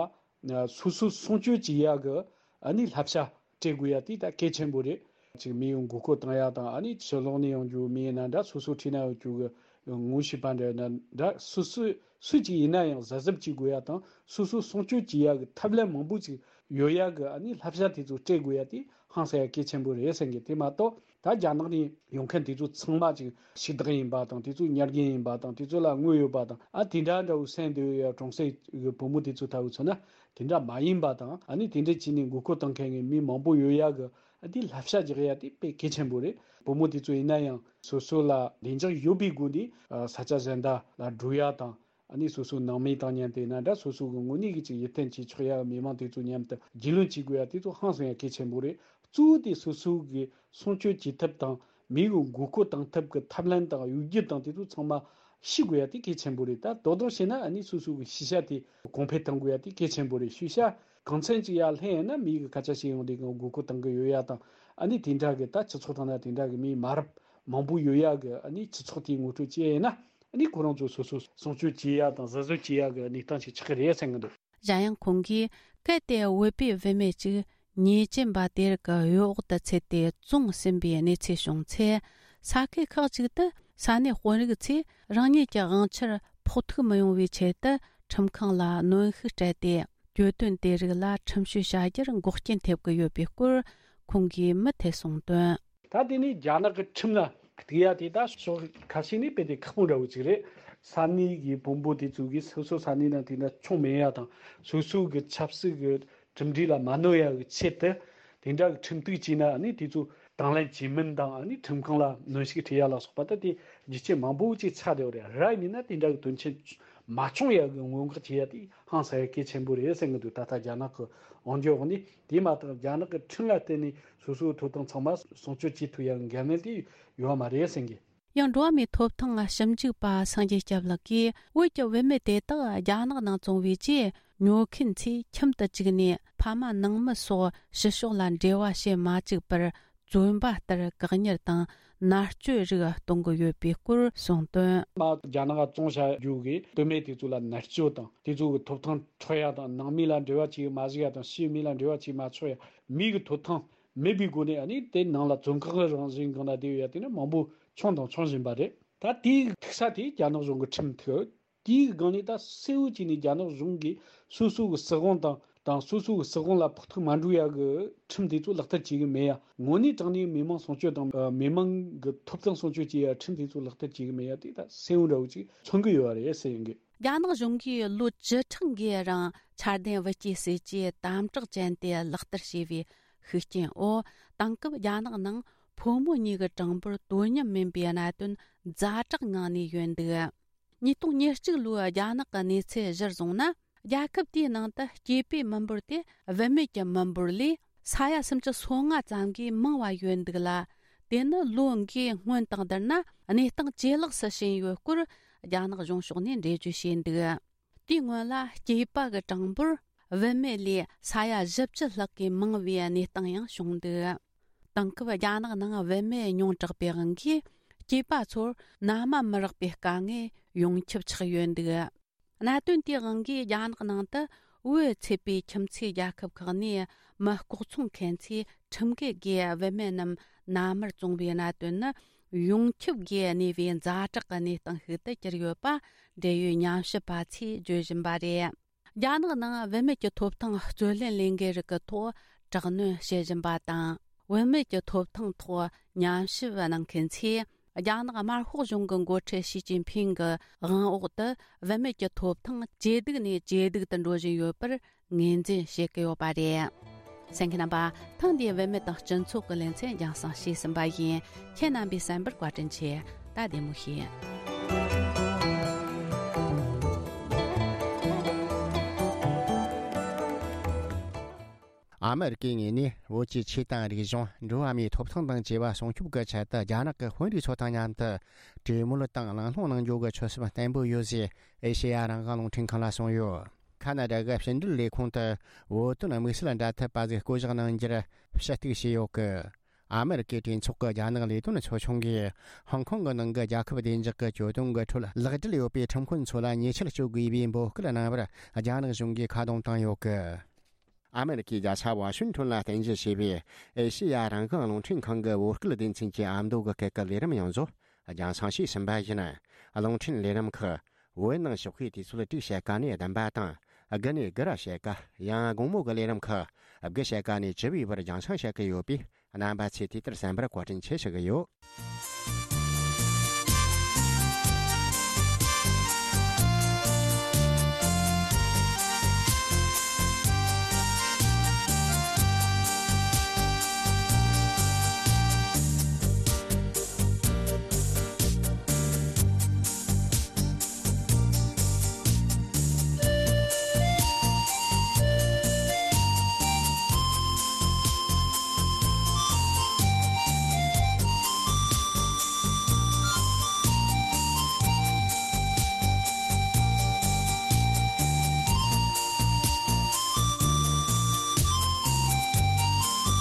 སོ་སོ་སྲུང་སྐྱོབ་བྱེད་ཡ་གི་ཨ་ནི་བསླབ་བྱ་སྤྲད་དགོས་ཡ་དེ་ད་གལ་ཆེན་པོ་རེད། ཅིག་མི་ཡོང་མགོ་སྐོར་བཏང་ཡ་དང་། ཨ་ནི་ཕྱི་ལོགས་ནས་ཡོང་རྒྱུ་མི་ཡིན་ན་འདྲ། སོ་སོ་འཁྲིས་ན་ཡོད་རྒྱུ་གི་ངོ་ཤེས་པ་འདྲ་ཡིན་ན་འདྲ། སོ་སོ་སུ་གཅིག་ཡིན་ན་ཡང་གཟབ་གཟབ་བྱེད་དགོས་ཡ་དང་། སོ་སོ་སྲུང་སྐྱོབ་བྱེད་ཡ་གི་ཐབས་ལམ་མང་པོ་ཅིག་ཡོད་ཡ་གི་ཨ་ནི་བསླབ་བྱ་དེ་ཚོ་སྤྲད་དགོས་ཡ་དེ་ཧང་སང་ཡ་གལ་ཆེན་པོ་རེད་བསམ་གི། དེ་མ་གཏོགས་ད་རྒྱ་ནག་ནས་ཡོང་མཁན་དེ་ཚོ་ཚང་མ་ཅིག་ཕྱུག་བདག་ཡིན་པ་དང་། དེ་ཚོ་ཉར་མཁན་ཡིན་པ་དང་། དེ་ཚོ་ལ་དངུལ་ཡོད་པ་དང་། ཨ་དེ་འདྲ་འདྲ་བོ་སེམས་འདོད་ཡ་གྲོང་གསེབ་གི་བུ་མོ་དེ་ཚོ་ལྟ་བུ་མཚོན་ན་དེ་འདྲ་མ་ཡིན་པ་དང་། ཨ་ནི་དེ་འདྲ་བྱས་ནས་མགོ་སྐོར་བཏང་མཁན་གི་མི་མང་པོ་ཡོད་ཡ་གི། ཨ་དེ་བསླབ་བྱ་རྒྱག་ཡ་དེ་དཔེ་གལ་ཆེན་པོ་རེད། བུ་མོ་དེ་ཚོ་ཡིན་ན་ཡང་སོ་སོ་ལ་བདེ་འཇགས་ཡོད་པའི་སྒོ་ནས་ས་ཆ་གཞན་དག་ལ་འགྲོ་ཡ་དང་། ཨ་ནི་སོ་སོའི་ནང་མི་དང་མཉམ་དུ་ཡིན་ན་འདྲ། སོ་སོ་གི་དངོས་གནས་ཀྱི་ཅིག་ཡིད་བརྟན་བྱེད་ཆོག་ཡ་མི་མང་དེ་ཚོ་མཉམ་དུ་རྒྱུས་ལོན་བྱེད་དགོས་ཡ་དེ་ཚོ་ཧང་སང་ཡ་གལ་ཆེན་པོ་རེད། གཙོ་བོ་དེ་སོ་སོ་གི་སྲུང་སྐྱོབ་བྱེད་ཐབས་དང་མི་གི་མགོ་སྐོར་བཏང་ཐབས་ཀྱི་ཐབས་ལམ་དང་གཡོ་སྒྱུ་དང་དེ་ཚོ་ཚང་མ་ཤེས་དགོས་ཡ་དེ་གལ་ཆེན་པོ་རེད། ད་དོ་དོ་བྱས་ན་ཨ་ནི་སོ་སོ་གི་ཤེས་བྱ་དེ་གོང་འཕེལ་གཏང་དགོས་ཡ་དེ་གལ་ཆེན་པོ་རེད། ཤེས་བྱ་གང་འཚམ་ཅིག་ཡར་ལྷན་ཡོད་ན་མི་གི་སྐད་ཆ་བཤད་ཡོང་དུས་གང་མགོ་སྐོར་བཏང་གི་ཡོད་ཡ་དང་ཨ་ནི་དེ་འདྲ་གི་ད་སྤྱི་ཚོགས་ཐོག་ན་དེ་འདྲ་གི་མི་མ་རབས་མང་པོ་ཡོད་ཡ་གི་ཨ་ནི་སྤྱི་ཚོགས་དེའི་ངོ་སྤྲོད་བྱས་ཡིན་ན་ཨ་ནི་ཁོ་རང་ཚོ་སོ་སོ་སྲུང་སྐྱོབ་བྱེད་ཡ་དང་གཟབ་གཟབ་བྱེད་ཡ་གི་གནས་སྟངས་ཤིག་ཆགས་ཀྱི་རེད་བསམ་གི་འདུག། གཞན་ཡང་ཁོང་གིས་གལ་ཏེ་བོད་པའི་བུད་མེད་ཅིག་ཉེས་ཅན་པ་དེ་རིགས་ཀྱི་གཡོ་འོག་ཏུ་ཚུད་དེ་བཙོང་ཟིན་པའི་གནས་ཚུལ་བྱུང་ཚེ། ས་ཁུལ་ཁག་ཅིག་ཏུ་ས་གནས་དཔོན་རིགས་ཚོས་རང་ཉིད་ཀྱི་དབང་ཆར་ཕོག་ཐུག་མི་ཡོང་བའི་ཆེད་དུ་ཁྲིམས་ཁང་ལ་གནོན་ཤུགས་སྤྲད་དེ། གྱོད་དོན་དེ་རིགས་ལ་ཁྲིམས་གཞི་བྱ་རྒྱུར་འགོག་རྐྱེན་ཐེབས་ཀྱི་ཡོད་པའི་སྐོར་ཁོང་གིས་མུ་མཐུད་གསུངས་དོན། ད་དེ་ནས་རྒྱ་ནག་གི་ཁྲིམས་ལ་གཏུག་ཡ་དེ་ད་ཕྱོགས་ཁ་ཤས་ནས་དཔེ་དེ་ཁག་པོ་འདྲ་བོ་ཅིག་རེད། ས་གནས་ཀྱི་དཔོན་པོ་དེ་ཚོ་གིས་སོ་སོ་ས་གནས་ནང་དེ་འདྲ་ཆོག་མེད་ཡ་དང་སོ་སོ་གི་ཆབ་སྲིད་ཀྱི་གྲུབ་འབྲས་ལ་མ་གནོད་ཡ་གི་ཆེད་དུ་དེ་འདྲ་གི་ཁྲིམས་གཏུག་བྱས་ན་ཨ་ནི་དེ་ཚོ་དང་ལེན་བྱེད་མིན་དང་ཨ་ནི་ཁྲིམས་ཁང་ལ་གནོན་ཤུགས་སྤྲད་ཡ་ལ་སོགས་པ་ད་དེ་རྒྱུ་རྐྱེན་མང་པོ་ཅིག་ཆགས་བསྡད་ཡོད་རེད། ར་ཡིན་ན་དེ་འདྲ་གི་དོན་རྐྱེན་མ་བྱུང་ཡ་གི་སྔོན་འགོག་བྱེད་ཡ་དེ་ཧང་སང་ཡ་གལ་ཆེན་པོ་རེད་བསམ་གི་འདུག། ད་ལྟ་རྒྱ་ནག་གི་དབང་སྒྱུར་འོག་ནས། དེ་མ་ཐག་རྒྱ་ནག་གི་ཁྲིམས་ལ་བརྟེན་ནས་སོ་སོའི་ཐོབ་ཐང་ཚང་མ་སྲུང་སྐྱོབ་བྱེད་ཐུབ་ཡ་གི་འགན་ལེན་དེ་ཡོད་མ་རེད་ཟེར་གི། ཡང་འགྲོ་བ་མིའི་ཐོབ་ཐང་ཞིབ་འཇུག་པ་སངས་རྒྱས་སྐྱབས་ལགས་ཀྱིས། བོད་ཀྱི་བུད་མེད་དེ་དག་རྒྱ་ནག་ནང་བཙོང་བའི་རྗེས། ཉོ་མཁན་ཚོས་ཁྱིམ་དུ་བཅུག་ནས་ཕ་མ་ནང་མི་སོགས་ཕྱི་ཕྱོགས་ལ་འབྲེལ་བ་བྱེད་མ་བཅུག་པར། བཙོན་པ་ལྟར་བཀག་ཉར་དང་མནར་གཅོད་རིགས་གཏོང་གི་ཡོད་པའི་སྐོར་གསུངས་དོན། མ་རྒྱ་ནག་བཙོང་བྱ་རྒྱུ་གི་བུད་མེད་དེ་ཚོ་ལ་མནར་གཅོད་དང་དེ་ཚོ་གི་ཐོབ་ཐང་འཕྲོག་ཡ་དང་ནང་མི་ལ་འབྲེལ་བ་བྱེད་མ་བཅུག་ཡ་དང་ཕྱིའི་མི་ལ་འབྲེལ་བ་བྱེད་མ་ཆོག་ཡ། མི་གི་ཐོབ་ཐང་མེད་པའི་སྒོ་ནས་ཨ་ནི་དེ་ནང་ལ་བཙོན་ཁང་གི་རང་བཞིན་སྒང་ལ་བསྡད་ཡོད་ཡ་དེ་ནི་མང་པོ་བྱུང་དང་འབྱུང་བཞིན་པ་རེད། ད་དེའི་ཐུག་ས་དེ་རྒྱ་ནག་གཞུང་གི་ཁྲིམས་ཐོག་དེའི་སྒང་ནས་ད་གསལ་བོ་བྱས་ནས་རྒྱ་ནག་གཞུང་གིས་སོ་སོ་གི་སྲིད་དབང་དང་དང་སོ་སོ་གི་སྲིད་དབང་ལ་ཕོག་ཐུག་མ་འགྲོ་ཡ་གི་ཁྲིམས་དེ་ཚོ་ལག་བསྟར་བྱེད་གི་མེད་ཡ། དངོས་གནས་དྲང་གནས་མི་མང་སྲུང་སྐྱོབ་དང་མི་མང་གི་ཐོབ་ཐང་སྲུང་སྐྱོབ་བྱེད་ཡ་ཁྲིམས་དེ་ཚོ་ལག་བསྟར་བྱེད་གི་མེད་ཡ་དེ་ད་གསལ་བོ་འདྲ་བོ་ཅིག་མཚོན་གི་ཡོད་རེད་ཟེར་ཡོང་གི། རྒྱ་ནག་གཞུང་གིས་ལོ་བཅུ་ཕྲག་འགའི་རིང་འཆར་ལྡན་བུ་སྐྱེས་སྲིད་ཇུས་དམ་དྲག་ཅན་དེ་ལག་བསྟར་བྱས་པའི་ཤུགས་རྐྱེན་འོག་དེང་སྐབས་རྒྱ་ནག་ནང་ཕོ་མོ་གཉིས་ཀྱི་གྲངས་འབོར་དོ་མཉམ་མིན་པའི་གནད་དོན་ཛ་དྲག་ངང་ནས་ཡོད་འདུག། ཉིས་སྟོང་ཉེར་གཅིག་ལོའི་རྒྱ་ནག་གི་གནས་ཚུལ་གཞིར་བཟུང་ན། རྒྱལ་ཁབ་དེའི་ནང་དུ་སྐྱེས་པའི་མི་འབོར་དེ་བུད་མེད་ཀྱི་མི་འབོར་ལས་ས་ཡ་སུམ་ཅུ་སོ་ལྔ་ཙམ་གྱིས་མང་བ་ཡོད་འདུག་ལ། དེ་ནི་ལོ་འགའི་སྔོན་དང་བསྡུར་ན་གནས་སྟངས་ཇེ་ལེགས་སུ་ཕྱིན་ཡོད་སྐོར་རྒྱ་ནག་གཞུང་ཕྱོགས་ནས་འགྲེལ་བརྗོད་བྱས་འདུག། དེའི་སྔོན་ལ་སྐྱེས་པ་གི་གྲངས་འབོར་བུད་མེད་ལས་ས་ཡ་བཞི་བཅུ་ལྷག་གིས་མང་བའི་གནས་སྟངས་ཡང་བྱུང་འདུག། དེང་སྐབས་རྒྱ་ནག་ནང་བུད་མེད་ཉུང་དྲགས་པའི་དབང་གིས་སྐྱེས་པ་ཚོར་མནའ་མ་མི་རག་པའི་དཀའ་ངལ་ཡོངས་ཁྱབ་ཆགས་ཡོད་འདུག། གནད་དོན་དེའི་དབང་གིས་རྒྱ་ནག་ནང་དུ་བོད་ཚད་པའི་ཁྱིམ་མཚེས་རྒྱལ་ཁབ་ཁག་ནས་མི་ལྐོག་ཚོང་མཁན་ཚོས་ཁྲིམས་འགལ་སྒོས་བུད་མེད་རྣམས་མནའ་མར་བཙོང་བའི་གནད་དོན་ནི་ཡོངས་ཁྱབ་སྒོས་གནས་པའི་ཛ་དྲག་གི་གནས་སྟངས་ཤིག་ཏུ་གྱུར་ཡོད་པ་འབྲེལ་ཡོད་ཉམས་ཞིབ་པ་ཚོས་བརྗོད་བཞིན་པ་རེད། རྒྱ་ནག་ནང་བུད་མེད་ཀྱི་ཐོབ་ཐང་རྩོད་ལེན་ལས་འགུལ་རིགས་ཀྱི་ཐོག་དྲག་གནོན་བྱེད་བཞིན་པ་དང་། བུད་མེད་ཀྱི་ཐོབ་ཐང་ཐོག་ཉམས་ཞིབ་གནང་མཁན་ཚོས། རྒྱ་ནག་དམར་ཤོག་གཞུང་གི་འགོ་ཁྲིད་ཞི་ཅིན་ཕིང་གི་དབང་འོག་ཏུ་བུད་མེད་ཀྱི་ཐོབ་ཐང་ཇེ་སྡུག་ནས་ཇེ་སྡུག་ཏུ་འགྲོ་བཞིན་ཡོད་པར་ངོས་འཛིན་བྱེད་ཀྱི་ཡོད་པ་རེད། གསན་མཁན་རྣམ་པ། ཐེངས་འདིའི་བུད་མེད་དང་སྤྱི་ཚོགས་ཀྱི་ལེ་ཚན་རྒྱང་སྲིང་བྱས་ཟིན་པ་ཡིན། ཁྱེད་རྣམ་པས་གསན་པར་བཀའ་དྲིན་ཆེ། ད་བདེ་མོ་བྱོས། ཨ་མེ་རི་ཀའི་ངོས་ནས་བོད་ཀྱི་ཆོས་དང་རིག་གཞུང་། འགྲོ་བ་མིའི་ཐོབ་ཐང་དང་བཅས་པ་སྲུང་སྐྱོབ་ཀྱི་ཆེད་དུ་རྒྱ་ནག་གི་དཔོན་རིགས་ཚོ་དང་མཉམ་དུ་གྲོས་མོལ་དང་གླེང་སློང་གནང་རྒྱུ་གི་ཆོད་སེམས་བརྟན་པོ་ཡོད་ཅེས་ཨེ་ཤེ་ཡ་རང་དབང་རླུང་འཕྲིན་ཁང་ལ་གསུངས་ཡོད། ཁ་ན་ཌ་གི་ཕྱི་འབྲེལ་ལས་ཁུངས་དུ་བོད་དོན་དམིགས་བསལ་འབྲེལ་མཐུད་པ་ཟིག་བསྐོ་གཞག་གནང་རྒྱུར་ཞུ་གཏུག་བྱས་ཡོད་གི། ཨ་མེ་རི་ཀའི་གྲོས་ཚོགས་ཀྱི་རྒྱ་ནག་ལས་དོན་ཚོགས་ཆུང་གིས་ཧོང་ཀོང་གི་ནང་གི་རྒྱལ་ཁབ་བདེ་འཇགས་ཀྱི་གྱོད་དོན་གྱི་ཁྲོད་ལག་འབྲེལ་ཡོད་པའི་ཁྲིམས་དཔོན་ཚོ་ལ་ཉེས་ཆད་གཅོད་དགོས་པའི་འབོད་སྐུལ་གནང་བར་རྒྱ་ནག་གཞུང་གིས་ཁ་རྡུང་བཏང་ཡོད་གི། ཨ་མེ་རི་ཀའི་རྒྱལ་ས་ཝ་ཤིང་ཊོན་ལ་རྟེན་གཞི་བྱས་པའི་ཨེ་ཤེ་ཡ་རང་དབང་རླུང་འཕྲིན་ཁང་གི་བོད་སྐད་སྡེ་ཚན་གྱི་ཨ་མདོ་གི་སྐད་ཀྱི་ལས་རིམ་ཡང་བཟོ་རྒྱང་སྲིང་བྱས་ཟིན་པ་ཡིན། རླུང་འཕྲིན་ལས་རིམ་ཁག་བོད་ནང་ཞོགས་པའི་དུས་ཚོད་དྲུག་ཕྱེད་ཀ་ནས་བདུན་པ་དང་། དགུ་ནས་དགུ་ར་ཕྱེད་ཀ། ཡང་དགོང་མོ་གི་ལས་རིམ་ཁག་དགུ་ཕྱེད་ཀ་ནས་བཅུ་པའི་བར་རྒྱང་སྲིང་བྱེད་ཀྱི་ཡོད་པས། རྣམ་པ་ཚོས་དེ་ལྟར་གསན་པར་བཀའ་དྲིན་ཆེ་ཞུ་གི་ཡོད།